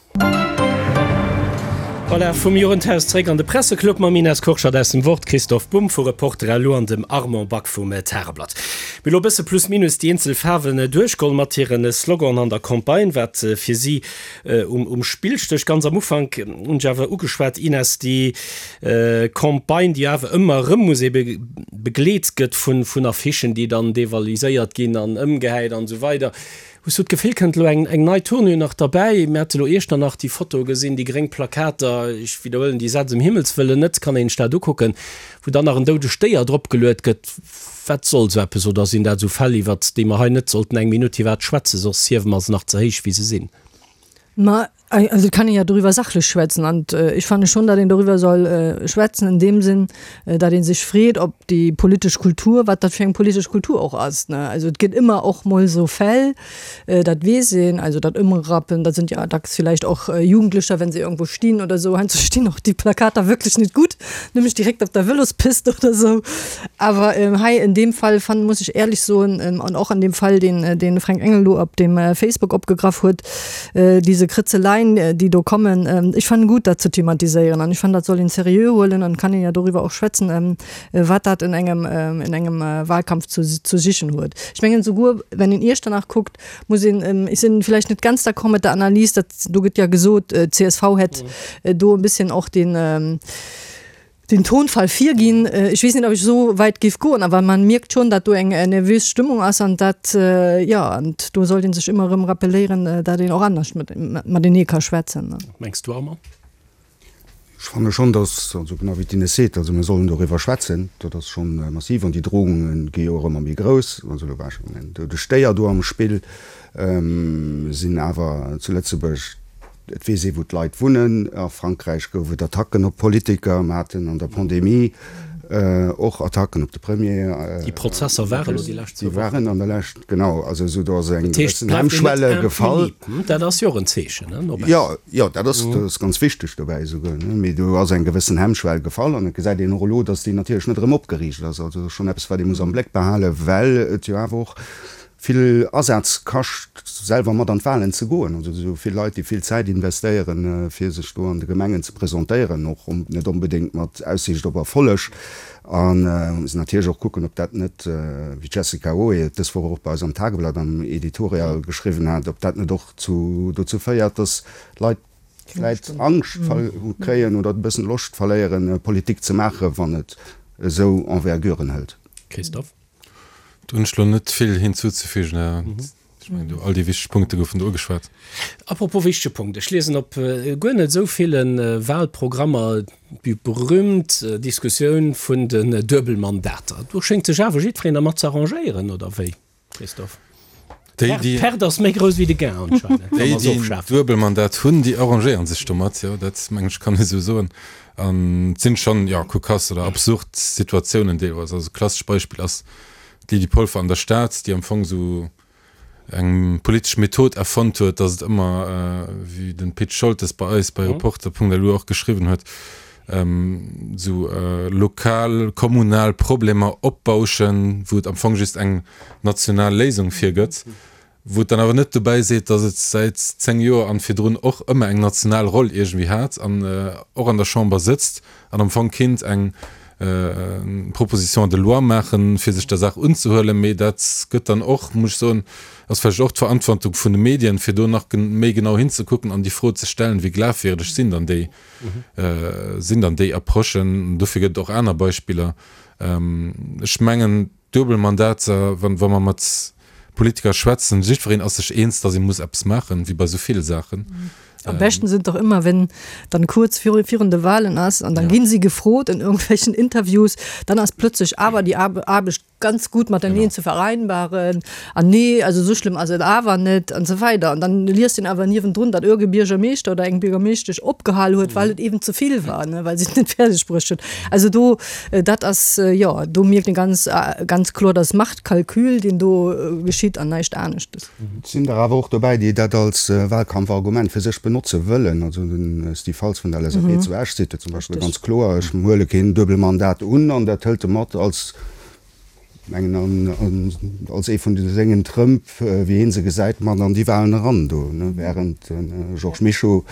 Voilà, vum Jugendhaus zréck an de Presseclub mam Ines Kurschat aus dem Wort, Christoph Bumb vu Reporter lu an dem Armand Back vum Tageblatt. Mir elo e bësse plus minus déi eenzel Faarwen duerchgoll mat hire Sloganen an der Campagne, wat fir si um Spill stécht. Ganz am Ufank hunn ech awer ugeschwat, Ines, déi Campagne, déi awer ëmmer erëm muss ebe begleet gëtt vun Affichen, déi dann devaliséiert ginn an ëmgehäit an esou weider. Hues du d'Gefill, kënnt elo eng eng nei Tournure nach derbäi? Mir hate lo Iechternach déi Foto gesinn, déi gréng Plakater, ech widderhuelen déi Sätz ëm Himmels wëllen net, kann een sech dat ukucken, wou dann nach en doudegt Déier dropgeluet gëtt. Wat soll sou eppes? Oder sinn dat sou Fäll, iwwert déi mer hei net sollten eng Minutt iwwert schwätzen, soss hiewe mer se nach ze héich wéi se sinn? Ma also et kann een ja doriwwer sachlech schwätzen an ech fanne schon, datt een doriwwer soll schwätzen in deem Sinn, datt ee sech freet, ob déi politesch Kultur, wat dat fir eng politesch Kultur och ass, ne. Also et gëtt ëmmer och mol esou Fäll, dat weess een, also dat Ëmrappen, dat sind ja dacks vielleicht och Jugendlecher, wenn se irgendwo stinn oder esou, heiansdo stinn och déi Plakater wirklich net gutt, nämlech direkt op der Vëlospist oder esou. Awer hei in deem Fall fannen, muss ech éierlech soen, an och an deem Fall, deen de Fränk Engel do op dem Facebook opgegraff huet, Diese Kritzeleien, déi do kommen, ech fannen gut, dat ze thematiséieren an ech fannen, dat soll een seriö huelen an kann een jo doriwwer och schwätzen, wat dat in engem, in engem Wahlkampf zu, zu sichen huet. Ech mengen souguer, wenn een Iechternach kuckt, muss een, ech sinn vielleicht net ganz d'accord mat der Analys, dat do gëtt ja gesot, d'CSV hätt do e bisschen och den, den Tonfall virginn. Ech weess net, ob ech esou wäit géif goen, awer man mierkt schonn, datt do eng nervös Stëmmung ass an dat, jo, an do sollt ee sech ëmmer erëm rappelléieren, datt een och anescht matenee ka schwätzen. Mengs du, Armand? Ech fanne schonn, datt, also genau wéi d'Ines seet, also mir sollen doriwwer schwätzen, dat ass scho massiv an déi Drohunge gi jo och ëmmer méi grouss. Also elo war schonn en doudegt Déier do am Spill, sinn awer zu Lëtzebuerg, Et weess ee wou d'Leit wunnen. A Frankräich gouf et Attacken op Politiker. Mer haten an der Pandemie och Attacken op de Premier. Déi Prozesser waren elo déi lescht zwou Wochen. Déi waren an der Lescht, genau. Also esou do ass eng gewëssen Hemmschwelle gefall. Dat ass jo och en Zeechen, ne, no baussen. Jo, jo, dat ass, dat ass ganz wichteg dobäi esouguer, ne. Mee do ass eng gewëssen Hemmschwell gefall an et gesäit een och elo, datt déi natierlech net erëm opgeriicht ass. Also dat ass schonn eppes, wat ee muss am Bléck behalen, well et jo awer och vill Asaz kascht, selwer mat an d'Wahlen ze goen. Also esou vill Leit, déi vill Zäit investéieren, fir sech do an de Gemengen ze presentéieren, och net onbedéngt mat Aussiicht op Erfolleg. A muss natierlech och kucken, ob dat net, wéi d'Jessica Oe et dës Woch och bei eis am Tageblatt am Editorial geschriwwen hat, ob dat net och zu dozou féiert, datt Leit vläit Angscht kréien oder e bëssen Loscht verléieren, Politik ze maachen, wann et esou Enverguren hëlt. Christophe. Do hunn ech elo net vill hinzuzefügen. Ech mengen, do all déi wichteg Punkte goufen do ugeschwat. Apropos wichtege Punkt, Ech liesen op guer net esou ville Wahlprogrammer déi berühmt Diskussioun vun den Duebelmandater. Do schéngt sech awer jiddwereen dermat ze arrangéieren, oder wéi, Christophe? D'Perte ass méi grouss wéi de Gain anscheinend, wa mer se ofschafen. Déi, déi en Duebelmandat hunn, déi arrangéiere sech domat, jo, dat mengen ech kann ee sou soen. An et sinn schonn, jo, kokass oder absurd Situatiounen deelweis. Also e klassescht Beispill ass d'Lydie Polfer an der Stad, déi am Fong sou eng politesch Method erfonnt huet, datt et ëmmer, wéi de Pit Scholtes bei eis bei Reporter.lu och geschriwwen huet, esou lokal, kommunal Problemer opbauschen, wou et am Fong just eng national Léisung fir gëtt, wou et dann awer net dobäi seet, datt et säit 10 Joer an virdrun och ëmmer eng national Roll iergendwéi hat an och an der Chamber sëtzt an am Fong kinnt eng Proposition de loi maachen, fir sech der Saach unzehuelen. Mee dat gëtt dann och, muss ech soen, ass vläicht och d'Verantwortung vun de Medien, fir do nach méi genau hinzekucken an déi Fro ze stellen, wéi glafwierdeg sinn dann déi sinn dann déi Approchen. Dofir gëtt et och aner Beispiller. Ech mengen, Duebelmandater, wa mer mat Politiker schwätzen, jiddwereen ass sech eens, datt ee muss eppes maachen, wéi bei esou ville Saachen. Am beschten sind doch immer, wenn dann kurz virun de Wahlen ass an dann ginn si gefrot in irgendwelchen Interviews, dann ass plötzlich awer déi Aarbecht ganz gut mateneen ze vereinbaren an nee, also esou schlëmm ass et awer net an esou weider. An dann liest een awer niewendrun, datt ierge Biergermeeschter oder eng Biergermeeschtesch opgehal huet, well et eben ze vill war, ne, well si et net fäerdeg bruecht huet. Also do, dat ass, jo, do mierkt een ganz, ganz kloer, dat ass Machtkalkül, deen do geschitt an näischt aneschtes. Et sinn der awer och dobäi, déi dat als Wahlkampfargument fir sech benotze wëllen. Also de Steve Faltz vun der LSAP zu Esch seet jo zum Beispill ganz kloer, Ech huele keen Duebelmandat un. An dat hëlt e mat als, mengen an, als ee vun de sengen Trëmp, wéi hie se gesäit, mat an déi Wahlen eran do. Während de Georges Mischo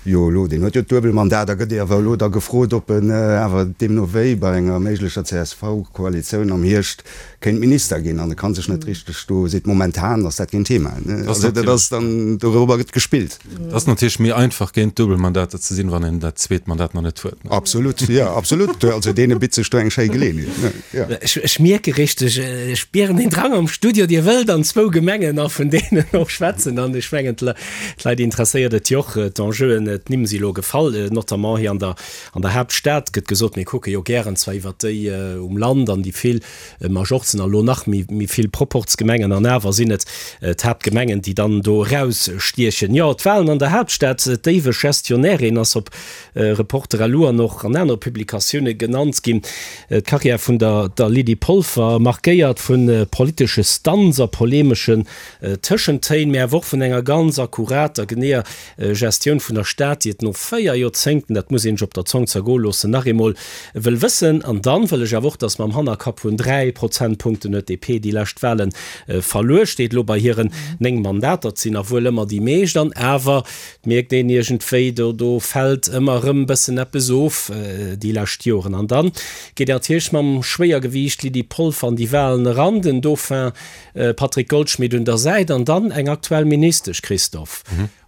jo elo, deen huet jo d'Duebelmandat a gëtt awer elo da gefrot, ob en awer deemno wéi bei enger méiglecher CSV-Koalitioun am Hierscht kéint Minister ginn an e kann sech net richteg do, seet momentan ass dat keen Thema, also dat ass dann, dorobber gëtt gespillt. Et ass natierlech méi einfach géint Duebelmandater ze sinn, wann een dat zweet Mandat nach net huet. Absolut, jo absolut, also deene bitt sech do eng schéi Geleeënheet, jo. Ech mierke richteg, ech spieren den Drang am Studio, Dir wëllt an zwou Gemengen a vun deenen och schwätzen an ech mengen d'Leit interesséiert et jo och, d'Enjeuen, d'Nimm si lo gefall, notamment hei an der An der Haaptstad gëtt gesot, mir kucke jo gären zwar iwwert déi um Land an déi vill Majorzen a lo nach méi vill Proporzgemengen, an awer sinn et d'Haaptgemengen, déi dann do erausstiechen. Jo, d'Wahlen an der Haaptstad, d'éiweg Gestionnairin ass op Reporter lu an och an anere Publikatioune genannt ginn. D'Karriär vun der Lydie Polfer, markéiert vu politesche Stunts a polemeschen Tëschentéin, mä awer och vun enger ganz akkurater, geneeër Gestioun vun der Stad, déi et no 4 Joerzéngten, dat muss een sech op der Zong zergoe loossen, nach eemol wëll wëssen. An dann wëll ech awer och, datt mam Hannerkapp vun 3 Prozentpunkten huet d'DP déi lescht Wahlen verluer, steet elo bei hiren 9 Mandater, et sinn nach wuel ëmmer déi meescht, an awer mierkt een iergendwéi, do do fält ëmmer erëm bëssen eppes of déi lescht Joren. An dann geet een natierlech mam Schwéiergewiicht Lydie Polfer an déi Wahlen eran, den Dauphin Patrick Goldschmidt un der Säit an dann eng aktuell Ministesch, Christophe.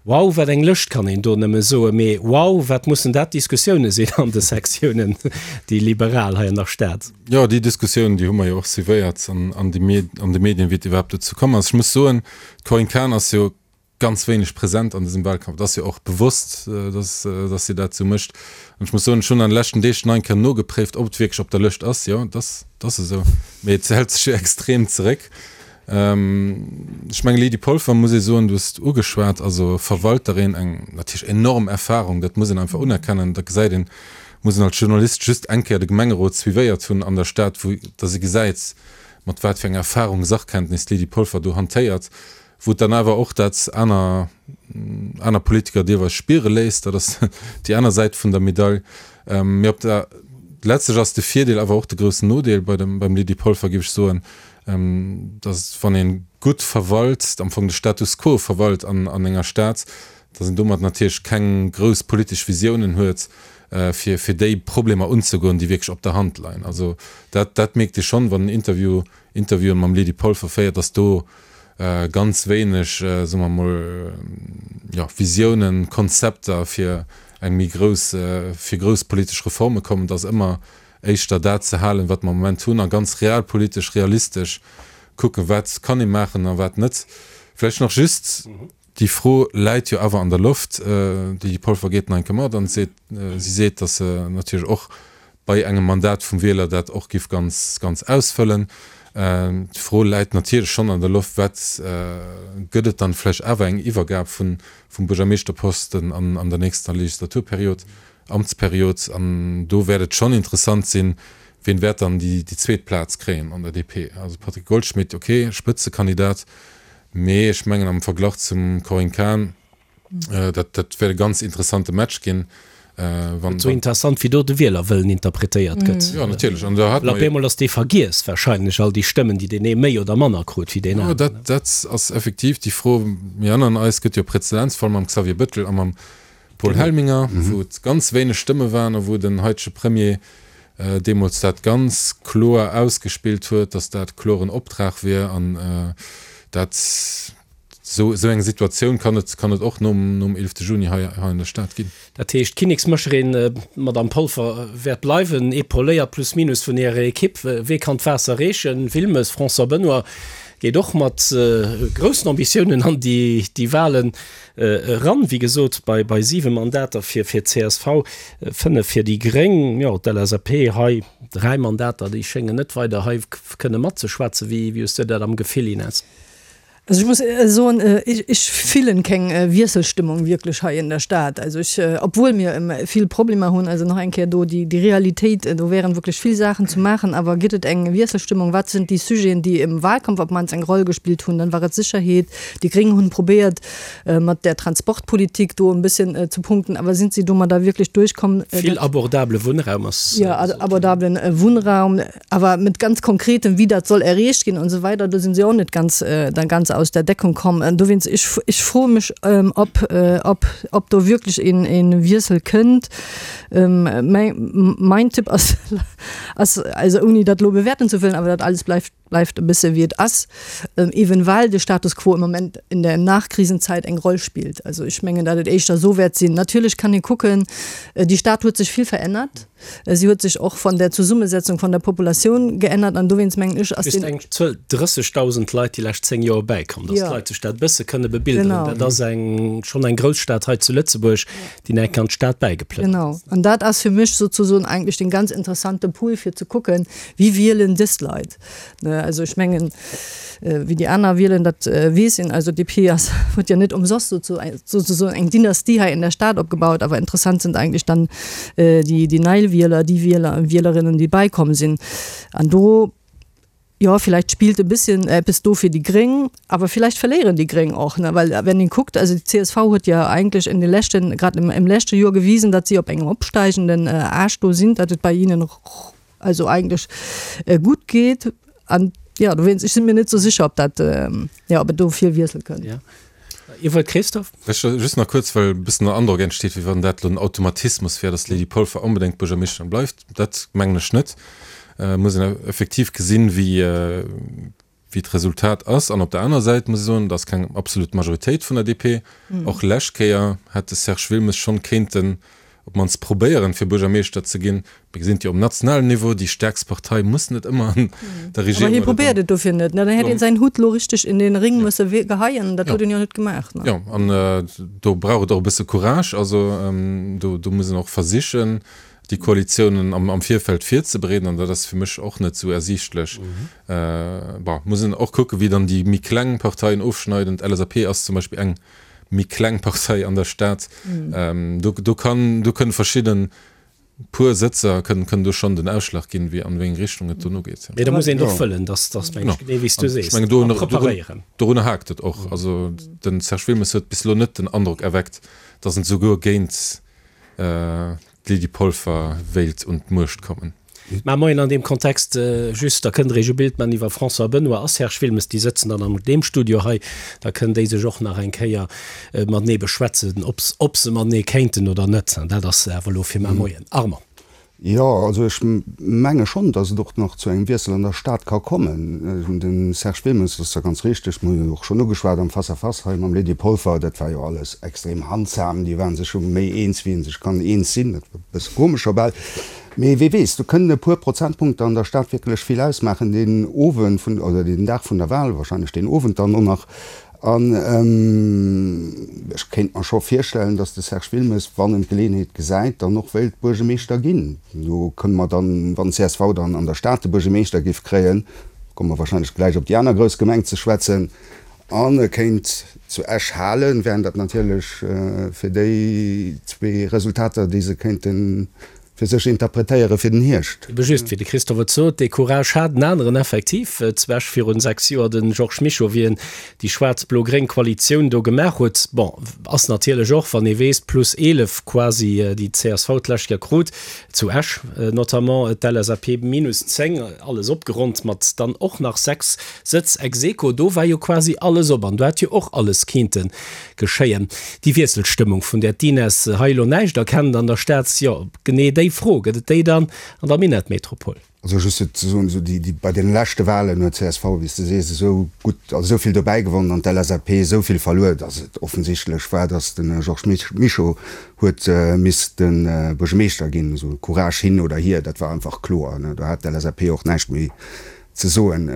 Wow, wat eng Lëscht kann een do nëmme soen, mee wow, wat mussen dat Diskussioune sinn an de Sektiounen, déi liberal hei an der Stad. Jo, déi Diskussioun, déi hu mer jo och suivéiert an de Medien, wéi et iwwerhaapt dozou komm ass. Ech muss soen, d'Corinne Cahen ass jo ganz wéineg present an dësem Wahlkampf. Et ass jo och bewosst, dass, dass si dat esou mécht. An ech muss soen, ech hunn an de leschten Deeg nach eng Kéier nogepréift, ob et wierklech op der Lëscht ass. Jo, et ass, et ass esou. Mee et hält sech jo extrem zeréck. Ech mengen, Lydie Polfer, muss ee soen, du hues et ugeschwat, also Verwalterin, eng natierlech enorm Erfahrung, dat muss een einfach unerkennen. Da gesäit een, muss een als Journalist just eng Kéier de Gemengerot suivéiert hunn an der Stad, wou dass ee gesäit, mat wat fir enger Erfahrung, Sachkenntnis d'Lydie Polfer do hantéiert. Wou et dann awer och dat aner aner Politiker deelweis spiere léisst, dat ass déi aner Säit vun der Medail. Mee op der letztlech ass de Virdeel awer och de groussen Nodeel bei dem beim Lydie Polfer, géif ech soen, datt wann ee gutt verwalt, am Fong de Status quo verwalt an an enger Stad, datt een domat natierlech keng grouss politesch Visiounen huet, fir fir déi Problemer unzegoen, déi wierklech op der Hand leien. Also dat dat mierkt ee schonn, wann en Interview Interviewen mam Lydie Polfer féiert, datt do ganz wéineg, soe mer emol, jo, Visiounen, Konzepter fir eng méi grouss, fir grouss politesch Reforme kommen. Et ass ëmmer éischter dat ze halen, wat mer am Moment hunn a ganz realpolitesch, realistesch kucken, wat kann ee maachen a wat net. Vläicht nach just Déi Fro läit jo awer an der Loft. D'Lydie Polfer geet nach eng Kéier mat an seet, si seet, datt se natierlech och bei engem Mandat vum Wieler dat och giff ganz, ganz ausfëllen. D'Fro läit natierlech schonn an der Loft, wat gëtt et dann vläicht awer eng Iwwergab vun, vum Buergermeeschterposten an, an der nächster Legislaturperiod, Amtsperiod. An do wäert et schonn interessant sinn, wien wäert dann déi, déi zweet Plaz kréien an der DP. Also Patrick Goldschmidt, okay, Spëtzekandidat, Mee ech mengen am Verglach zum Corinne Cahen, dat dat wäert e ganz interessante Match ginn. Wann Esou interessant wéi do de Wielerwëllen interpretéiert gëtt. Jo natierlech, an do hat mer jo. Op eemol ass dee vergiess wahrscheinlech, all déi Stëmmen déi deen ee méi oder manner krut wéi deen aneren. Jo dat dat ass effektiv déi Fro. Mir erënneren eis, et gëtt jo e Präzedenzfall mam Xavier Bettel a mam Paul Helminger, wou et ganz wéineg Stëmme waren a wou den haitege Premier deemools dat ganz kloer ausgespillt huet, datt dat kloren Optrag wier an dat esou esou eng Situatioun kann et kann et och nom nom 11 Juni hei hei an der Stad ginn. Dat heescht, d'Kinneksmécherin, d'Madame Polfer, wäert bleiwen, épauléiert plus minus vun hirer Equipe. Wee kann d'Waasser reechen? Wilmes, François Benoy? Geet och mat groussen Ambitiounen an déi Wahlen eran. Wéi gesot, bei 7 Mandater fir d'CSV, 5 fir déi Gréng. Jo, d'LSAP hei 3 Mandater, déi schéngen net weider hei kënne matzeschwätzen. Wéi hues du dat am Gefill, Ines? Also ich muss soen, ich fillen keng Wiesselstimmung wierklech hei in der Stad. Also ich, obwohl mir vill Problemer hunn, also nach eng Kéier do déi Realitéit, do wären wierklech vill Saachen ze maachen, awer gëtt et eng Wiesselstimmung? Wat sinn déi Sujeten, déi im Wahlkampf op d'mannst eng Roll gespillt hunn? Dann war et Sécherheet. Déi Gréng hunn probéiert mat der Transportpolitik do en bësschen ze punkten, awer sinn si domadder wierklech duerchkomm? Vill abordable Wunnraum ass. Jo, abordablen Wunnraum. Awer mit ganz konkretem, wéi dat soll erreecht ginn und so weider, do sinn si och net ganz, dann ganz aus der Deckung komm. An dowéinst, ech, ech froe mech, ob, ob, ob do wierklech een, een Wiessel kënnt. Mäi, mein Tipp ass, ass, also ouni dat elo bewäerten ze wëllen, awer dat alles bleift, bleift e bësse wéi et ass, ewen well de Status quo im Moment in der Nachkrisenzeit eng Roll spillt. Also ech mengen, datt et éischter esou wäert sinn. Natierlech kann ee kucken, déi Stad huet sech vill verännert. Si huet sech och von der Zesummesetzung von der Populatioun geännert an dowéinst mengen ech ass den. Just eng Zuel, 30.000 Leit déi lescht 10 Joer bäikomm, dass d'Leit sech dat e bësse kënne bebilderen. Dat ass eng schonn eng grouss Stad hei zu Lëtzebuerg, déi nach enk an d'Stad bäigeplënnert Genau, an dat ass fir mech sozusoen eigentlech den ganz interessante Pool fir ze kucken, wie wielen dës Leit. Ne, also ech mengen, wéi déi aner wielen, dat weess een. Also DP ass, huet jo net ëmsoss souzesoen eng Dynastie hei in der Stad opgebaut. Awer interessant sind eigentlech dann déi, déi nei Wieler, déi Wieler a Wielerinnen, déi beikomm sinn. An do, jo, vielleicht spillt e bësschen eppes do fir déi Gréng, awer vielleicht verléieren déi Gréng och, ne, well wenn een kuckt, also déi csv huet jo eigentlech in de leschten, grad im, im leschte Joer gewisen, datt si op engem opsteigenden Aascht do sinn, datt et bei hinnen also eigentlech gutt geet an jo dowéinst ech sinn mir net sou sécher ob dat jo ob et do vill Wiessel kënnt. Ja. Dir wollt Christophe? Ech just nach kuerz, well e bëssen den Androck entsteet, wéi wann dat elo en Automatismus wär, datt d'Lydie Polfer onbedéngt Buergermeeschterin bleift. Dat mengen ech net. Et muss een effektiv gesinn, wéi wéi d'Resultat ass. An op der anerer Säit muss ee soen, et ass keng absolut Majoritéit vun der DP. Och lescht Kéier hätt de Serge Wilmes schonn kéinten op d'mannst probéieren, fir Buergermeeschter ze ginn. Mir gesinn et jo um nationalen Niveau, déi stäerkst Partei muss net ëmmer an der Regierung. Awer hie probéiert et dofir net. Dann hätt een säin Hutt elo richteg in den Ring musse geheien. Dat huet en jo net gemaach. Jo, an do brauch et och e bësse Courage. Also do muss een och versichen, déi Koalitiounen am Virfeld virzebereeden, an dat ass fir mech och net esou ersiichtlech. Bon, muss een och kucken, wéi dann déi méi kleng Parteien ofschneiden. D'LSAP ass zum Beispill eng méi kleng Partei an der Stad. Do, do kann, do kënne verschidden puer Sëtzer kënnen, kënnen do schonn den Ausschlag ginn, wéi an wéi eng Richtung et dono geet. Mee da muss een och wëllen, dass, dass mengen ech, genee wéi s du sees, a preparéieren. Dorunner haakt et och. Also de Serge Wilmes huet bis elo net den Androck erweckt, dass en souguer géint d'Lydie Polfer wéilt un d'Muecht kommen. Mä moien an deem Kontext just, da kënnt Der Iech e Bild man iwwer François Benoy a Serge Wilmes, déi sëtzen dann an deem Studio hei, da kënnen déi sech och nach eng Kéier matenee beschwätzen, ob ob se matenee kéinten oder net. Dat ass awer elo fir mar Moien. Armand. Jo, also ech menge schonn, datt et och nach zu engem Wiessel an der Stad ka kommen. De Serge Wilmes, dat ass da ganz richteg, mir hunn et och schonn ugeschwat am Face-à-face hei mam Lydie Polfer, dat war jo alles extrem handsam, déi ware sech jo méi eens wéi ee sech kann eens sinn, dat war e bësse komesch scho bal. Mee wee weess, do kënnen e puer Prozentpunkter an der Stad wierklech vill ausmaachen deen Owend vun, oder deen Dag vun der Wahl, wahrscheinlech deen Owend dann och nach. An ech kéint mer scho virstellen, datt de Serge Wilmes, wann en d'Geleeënheet gesäit, dann och wéilt Buergemeeschter ginn. Do kënne mer dann, wann csv dann an der Stad de Buergemeeschter géif kréien, komme mer wahrscheinlech gläich op déi aner grouss Gemeng ze schwätzen, an e kéint zu Esch halen, wären dat natierlech fir déi zwee Resultater, déi se kéinten fir sech interpretéiere fir den Hierscht. Ebe just, wéi de Christophe et sot, dee Courage hat en aneren effektiv zu Esch virun 6 Joer, de Georges Mischo, wéi en déi schwaarz-blo-gréng Koalitioun do gemaach huet. Bon, ass natierlech och, wann ee weess, plus 11 quasi, déi d'CSV d'lescht Joer krut, zu Esch notamment, d'LSAP minus 10, alles opgeronnt mat dann och nach 6 Sëtz ex aequo. Do war jo quasi alles op an do hätt jo och alles kinnte geschéien. Déi Wiesselstëmmung, vun där d'Ines hei elo näischt erkennt an der Stad, jo, genee déi Fro, gëtt et déi dann an der Minettmetropol? Also just fir ze soen, esou déi, déi bei deene leschte Wahlen huet csv, wéi s de sees, esou gutt, also esou vill dobäi gewonnen an d'LSAP esou vill verluer, datt et offensichtlech war, datt de Georges Mischo huet misste Buergermeeschter ginn. Esou Courage hin oder hier, dat war einfach kloer, ne. Do hat d'LSAP och näischt méi. Ze soen.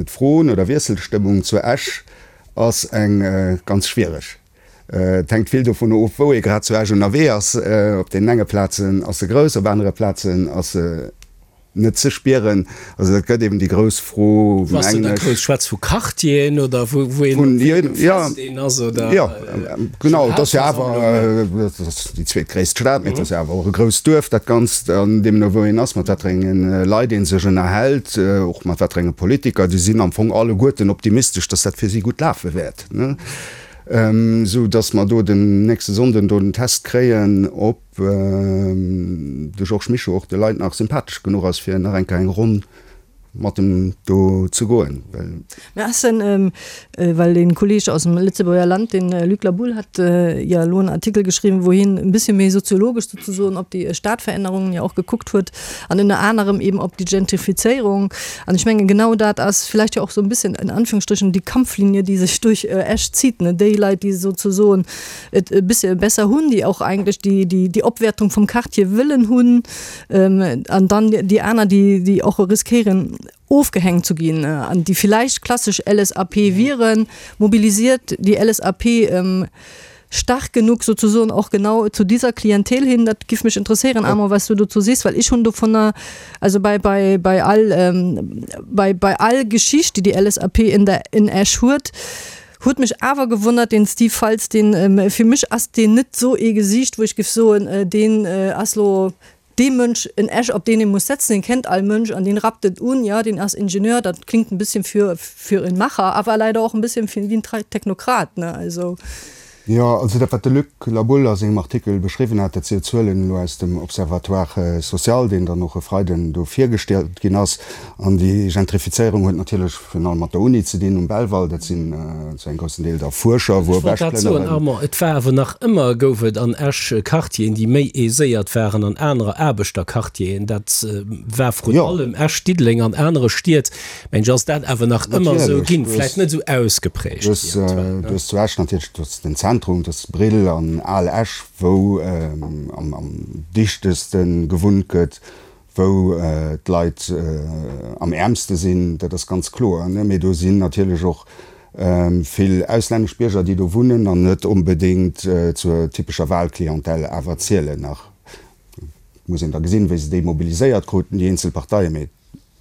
D'Fro no der Wiesselstëmmung zu Esch ass eng ganz schwiereg. Et hänkt vill dovun of, wou ee grad zu Esch ënnerwee ass. Op deenen enge Plazen ass se grouss, op anere Plazen ass se net ze spieren. Also dat gëtt eben déi grouss Fro, Wou ass se da grouss? Schwätz vu Quartieren oder wou een op wéi engem Fest een ass oder? Jo, genau. Et ass jo awer, et ass déi zweetgréisst Stad, mee et ass jo awer och e grousst Duerf, dat Ganzt. An deemno wou een ass, mat wat fir enge Leit ee sech ënnerhält, och mat wat fir enge Politiker, déi sinn am Fong alleguerten optimistesch, datt dat fir si gutt lafe wäert. Esou datt mer do den nächste Sonnden do den Test kréien, ob de Georges Mischo och de Leit nach sympathesch genuch ass, fir nach eng Kéier eng Ronn mat em do ze goen. Well. Mä ass denn, well dee Kolleg aus dem Lëtzebuerger Land, den Luc Laboulle, hat jo elo en Artikel geschriwwen, wou hien e bëssche méi soziologesch sozesoen op déi Stadverännerungen jo och gekuckt huet an ënner anerem eben op déi Gentrifizéierung. An ech mengen, genau dat ass vielleicht jo och esou e bësschen in Anführungsstrichen déi Kampflinie, déi sech duerch Esch zitt, ne, déi Leit, déi sozesoen et e bëssche besser hunn, déi och eigentlech déi, déi, déi Opwäertung vum Quartier wëllen hunn, an dann déi aner, déi, déi och riskéieren, ofgehängt zu ginn an déi vielleicht klassesch LSAP wieren, mobilisiert déi LSAP stark genug sozusagen och genau zu dieser Klientel hin? Dat giff mech interesséieren, Armand, was du dozou sees, well ech hunn dovunner, also bei, bei, bei all, bei, bei all Geschicht, déi déi LSAP in der, in Esch huet, huet mech awer gewonnert, deen Steve Faltz, deen, fir mech ass deen net sou ee Gesiicht, wou ech giff soen, deen ass lo dee Mënsch en Esch, op deen ee muss setzen, deen kennt all Mënsch an deen rappt et un, jo, deen ass Ingenieur, dat klingt en bisschen für, für en Macher, awer leider och en bisschen fir wéi en Technokrat, ne, also. Jo, also dat wat de Luc Laboulle a sengem Artikel beschriwwen hat, dat si jo Zuelen elo aus dem Observatoire social, deen dann och e Freiden do virgestallt ginn ass. An déi Gentrifizéierung huet natierlech virun allem mat der Uni ze dinn um Belval. Dat sinn zu engem groussen Deel da Fuerscher, wou Ech wollt dat soen, Armand, et war awer nach ëmmer, gouf et an Esch Quartieren, déi méi aiséiert waren an anerer Aarbechterquartieren. Dat war vrun allem Esch, Diddeleng an anere Stied, mengen ech, ass dat awer nach ëmmer esou ginn, vläicht net esou ausgeprägt wéi aktuell. Du hues zu Esch natierlech, du hues den Zentrum, du hues Brill an Al Esch, wou am dichteste gewunnt gëtt, wou d'Leit am äermste sinn, dat ass ganz kloer. Mee do sinn natierlech och vill auslännesch Bierger, déi do wunnen an net onbedéngt zur typescher Wahlclientèle awer zielen. Nach muss een da gesinn, wéi se déi mobiliséiert kruten, déi eenzel Parteien. Mee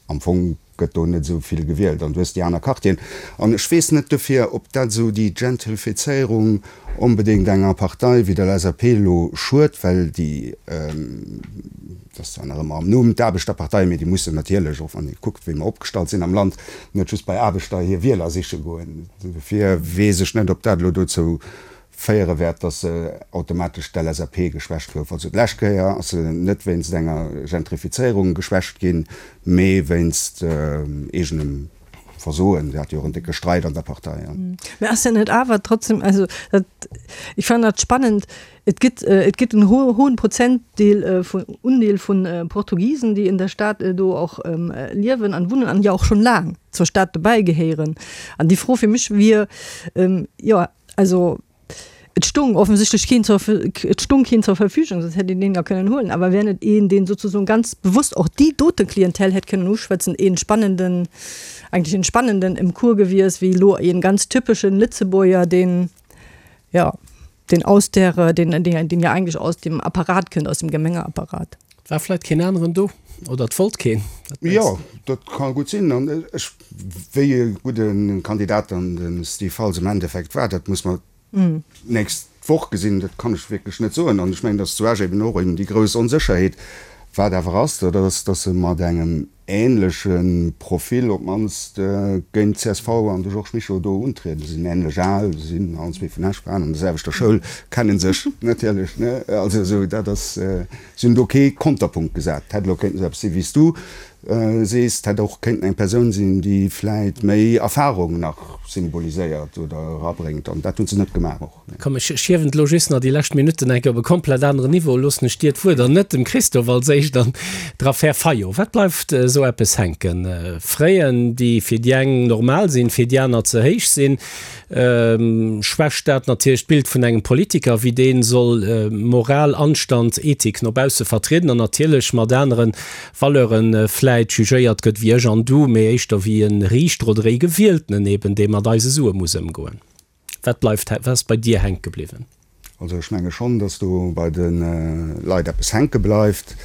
Am Fong gëtt do net esou vill gewielt an du hues déi aner Quartieren. An ech weess net dofir, ob dat esou déi Gentrifizéierung onbedéngt enger Partei wéi der LSAP elo schued, well déi, dat ass zwar nach ëmmer am Numm, d'Aarbechterpartei, mee déi mussen natierlech, och wann ee kuckt, wéi mer opgestallt sinn am Land, net just bei Aarbechter hir Wieler siche goen. Dofir weess ech net, ob dat elo dozou féiere wäert, dass se automatesch d'LSAP geschwächt gouf. Also d'lescht Kéier ass se net wéinst enger Gentrifizéierung geschwächt ginn, mee wéinst eegenem Versoen. Se hat jo och en décke Streit an der Partei. Mä ass dat net awer trotzdem, also dat, ech fannen dat spannend, et gëtt, et gëtt en hohen Prozentdeel vun, Undeel vun Portugisen, déi in der Stad do och liewen an wunnen an jo och schonn laang zur Stad dobäi gehéieren. An déi Fro fir mech wier, jo, Also et stung offensichtlech keen zur, et stung keen zur Verfügung, soss hätt een deen jo kënnen huelen. Awer wär net een, deen sozusoen ganz bewusst och déi dote Clientèle hätt kënnen uschwätzen, een spannenden, eigentlech een spannenden im Cours gewies, wéi elo een ganz typeschen Lëtzebuerger, deen, jo, deen aus der, deen, deen, deen jo eigentlech aus dem Apparat kënnt, aus dem Gemengeapparat. Et war vläit keen aneren do oder et wollt keen. Wat mengs Jo, de? dat ka gutt sinn. An ech, wéi e gudde Kandidat dann de Steve Faltz am Endeffekt war, dat muss mer d'nächst Woch gesinn. Dat kann ech wierklech net soen. An ech mengen, datt zu Esch eben och eben déi grouss Onsécherheet, wat awer ass, dat ass, datt se mat engem änleche Profil op d'mannst géint csv an de Georges Mischo do untrieden. Se sinn änlech al, se sinn allen zwee vun Esch, waren an der selwechter Schoul, kenne sech natierlech, ne? Also esou, dat ass, se hunn do kee Konterpunkt gesat. Et hätt elo kéinten esou eppes sinn, wéi s du sees, et hätt och kéinten eng Persoun sinn, déi vläit méi Erfarung nach symboliséiert oder erabréngt, an dat hu se net gemaach och. Komm, ech hiewen et elo just nach déi lescht Minutten eng Kéier op e komplett aneren Niveau, loossen ech dir d'Wuert an net dem Christophe als éischt an der Affär Fayot. Wat bleift esou eppes hänken? Fräen, déi fir déi eng normal sinn, fir déi aner ze héich sinn? Schwächt dat natierlech d'Bild vun engem Politiker, wéi dee soll Moral, Anstand, Ethik no bausse vertrieden an natierlech mat anere Valeuren vläicht? vläit jugéiert gëtt wéi ech an du, mee éischter wéi e Riichter oder ee Gewieltenen eben, dee mat eise Sue muss ëmgoen. Wat bleift, wat ass bei dir hänke bliwwen? Also ech menge schonn, datt do bei de Leit eppes hänke bleift.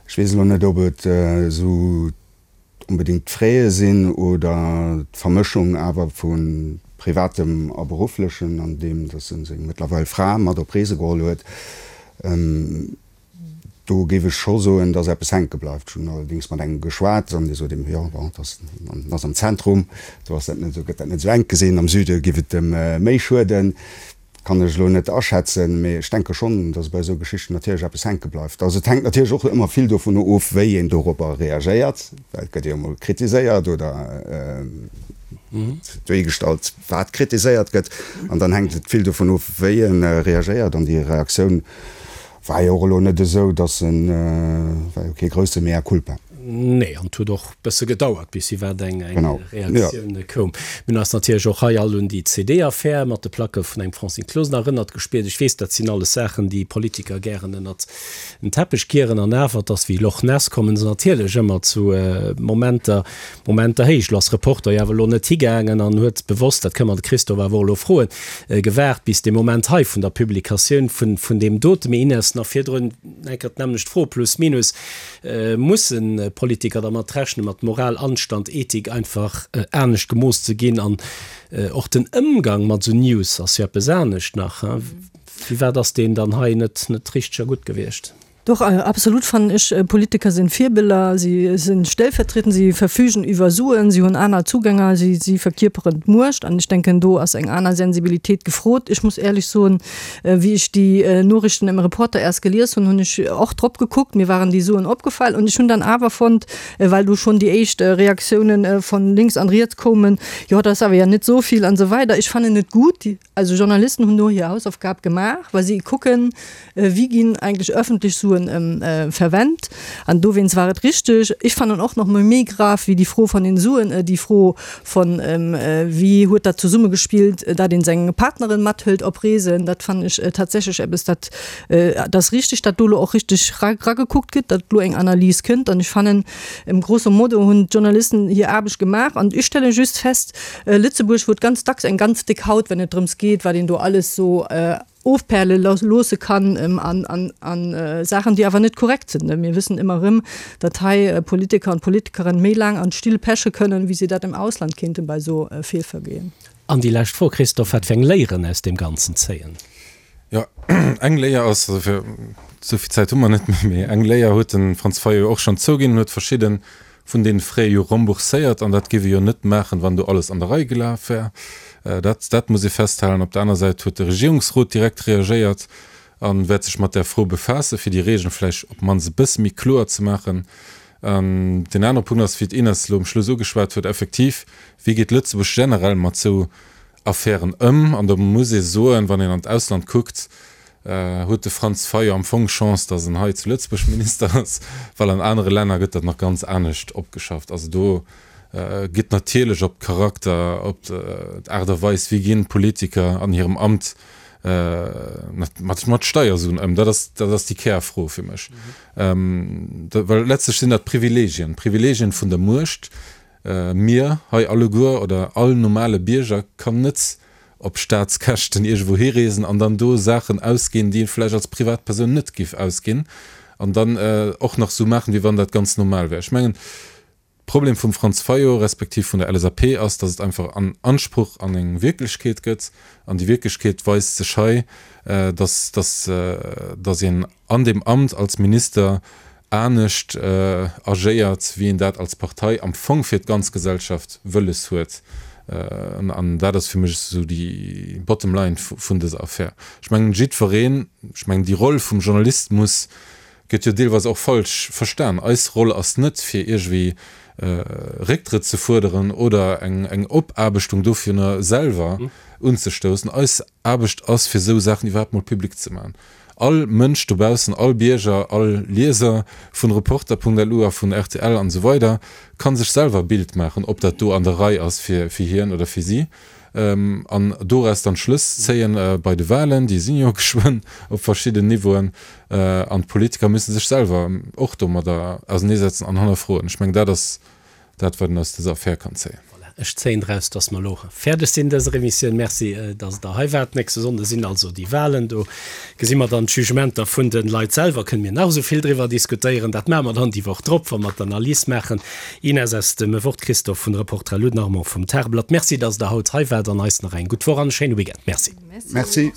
Ech weess elo net, ob et esou onbedéngt d'Fraie sinn oder d'Vermëschung awer vu Privatem a Berufflechen, an deem datt e seng mëttlerweil Fra mat op Reese geholl huet. Do géif ech scho soen, dass eppes hänke bleift. Ech hunn allerdéngs mat engem geschwat an dee sot eben, jo, bon, dat ass am Zentrum, do ass dat net esou, gëtt dat net esou enk gesinn. Am Süde géif et em méi schueden. Kann ech elo net aschätzen, mee ech denke schonn, dass bei esou Geschichten natierlech eppes hänke bleift. Also et hänkt natierlech och ëmmer vill dovun of, wéi een dorobber reagéiert, well et gëtt jo emol kritiséiert oder duergestallt, wat kritiséiert gëtt. An dann hänkt et vill dovun of, wéi e reagéiert an déi Reaktioun War jo och elo net esou, dass en, war jo kee grousse Mea culpa. Nee, an et huet och bësse gedauert, bis iwwerhaapt eng Reaktioun koum. Mir hunn eis natierlech och hei all un déi CD-Affär mat de Placke vun engem Francine Closener erënnert gespiert. Ech weess, dat sinn alles Saachen, déi Politiker gären ënnert den Teppech kieren. An awer, et ass wéi Loch Ness, kommen se natierlech ëmmer zu Momenter, Momenter héich. Lo ass Reporter jo awer elo net higaangen an huet bewosst, dat kënne mer de Christophe awer och elo froen, gewaart bis dee Moment hei vun der Publikatioun vun vun deem dote. Mee Ines, nach virdrun eng Kéier d'nämmlecht Fro, plus minus, Musse Politiker dermat rechnen, mat Moral, Anstand, Ethik einfach anescht gemooss ze ginn? An och den Ëmgang mat esou News ass jo eppes anescht nach. Firwat ass deen dann hei net net richteg a gutt gewiescht? Doch, absolut fannen ech. Politiker sinn Virbiller, si sinn stellvertrietend, si verfügen iwwer Suen, si hunn aner Zugänger, si si verkierperen d'Muecht an ech denken do ass eng aner Sensibilitéit gefrot. Ech muss éierlech soen, wéi ech déi Noriichten im Reporter erst gelies hunn, hunn ech och drop gekuckt, mir waren déi Suen opgefall und ech hunn dann awer fonnt, well do schonn déi éischt Reaktiounen von links an riets koumen, jo dat ass awer ja net esou vill an esou weider. Ech fannen et gutt, also Journalisten hunn do hir Hausaufgab gemaach, well si kucken, Wéi ginn eigentlech öffentlech Suen verwennt? An dowéinst war et richteg. Ech fannen och nach mol méi grav wéi déi Fro von den Suen déi Fro von, wéi huet dat zesummegespillt, dat een seng Partnerin mathëlt op Reesen. Dat fannen ech tatsächlech eppes, dat et ass richteg, dat do elo och richteg ragekuckt gëtt, dat elo eng Analys kënnt. An ech fannen, grosso modo hunn d'Journalisten hir Aarbecht gemaach. An ech stelle just fest, Lëtzebuerg huet ganz dacks eng ganz déck Haut, wenn et drëms geet, wat een do alles sou ofperle loosse kann an Saachen, déi awer net korrekt sinn. Mir wëssen ëmmer erëm, datt hei Politiker an Politikerinnen méi laang an d'Still peche kënnen, wéi si dat am Ausland kéinten bei esou Feelvergehen. An déi lescht Fro, Christophe, Wat fir eng Léieren aus deem Ganzen zéien? Jo, eng Léier ass, also fir, esou vill Zäit hu mer net méi, mee eng Léier huet de Franz Fayot och schonn zouginn, en huet verschidde vun deene Frais jo rembourséiert, an dat géif e jo net maachen, wann do alles an der Rei gelaf wär. Dat, dat muss ee festhalen. Op der aner Säit huet de Regierungsrot direkt reagéiert a wäert sech mat där Fro befaassen, fir déi Regeln vläicht op d'mannst e bësse méi kloer ze maachen. An deen anere Punkt ass, wéi d'Ines elo um Schluss ugeschwat huet, effektiv, wéi geet Lëtzebuerg generell mat esou Affären ëm? An do muss ee soen, wann een an d'Ausland kuckt, Huet de Franz Fayot am Fong Chance, datt en hei zu Lëtzebuerg Minister ass, well an anere Länner gëtt dat nach ganz anescht opgeschafft. Also do gëtt natierlech op Charakter, op d'Aart a Weis, wéi ginn d'Politiker an hirem Amt mat mat Steiersuen ëm, dat ass dat ass déi Kärfro fir mech. Well letztlech sinn dat Privilegien, Privilegien vun der Muecht. Mir hei alleguer oder all normale Bierger kann net op Staatskäschten iergendwou hireesen an dann do Saachen ausginn, déi ee vläicht als Privatpersoun net giff ausginn an dann och nach esou maachen, wéi wann dat ganz normal wär. Ech mengen, Problem vum Franz Fayot respektiv vun der LSAP ass, datt et einfach an Anspruch an eng Wierklechkeet gëtt an déi Wierklechkeet weist sech hei, datt, datt, datt een an deem Amt als Minister anescht agéiert, wéi een dat als Partei am Fong fir d'ganz Gesellschaft wëlles huet. An dat ass fir mech esou déi bottom line vun dëser Affär. Ech mengen, jiddwereen, ech mengen, déi Roll vum Journalist muss, gëtt jo deelweis och falsch verstan. Eis Roll ass net, fir iergendwéi Récktrëtt ze fuerderen oder eng Opaarbechtung dovunner selwer unzestoussen. Eis Aarbecht ass, fir esou Saachen iwwerhaapt mol public ze maachen. All Mënsch dobaussen, all Bierger, all Lieser vun Reporter.lu a vun rtl an esou weider ka sech selwer e Bild maachen, ob dat do an der Rei ass fir hien oder fir si. An doraus dann Schlëss zéien bei de Wahlen, déi sinn jo geschwënn op verschidden Niveauen. An d'Politiker müssen sech selwer och domadder auserneesetzen an hannerfroen. Ech mengen, dat ass dat, wat een aus dëser Affär kann zéien. Voilà, ech zéien draus, dass mer elo fäerdeg sinn dëser Emissioun. Merci, dass Der hei waart. Nächste Sonnde sinn also déi Wahlen. Do gesi mer dann d'Jugementer vun de Leit selwer. Kënne mir nach esou vill driwwer diskutéieren. Dat maache mer dann déi Woch drop, wa mer d'Analys maachen. Ines aus dem Wort, Christophe vun Reporter Lou, den Armand vum Tageblatt. Merci, dass Der haut hei waart an eis nach eng gutt Woch an e schéine Weekend. Merci. Merci.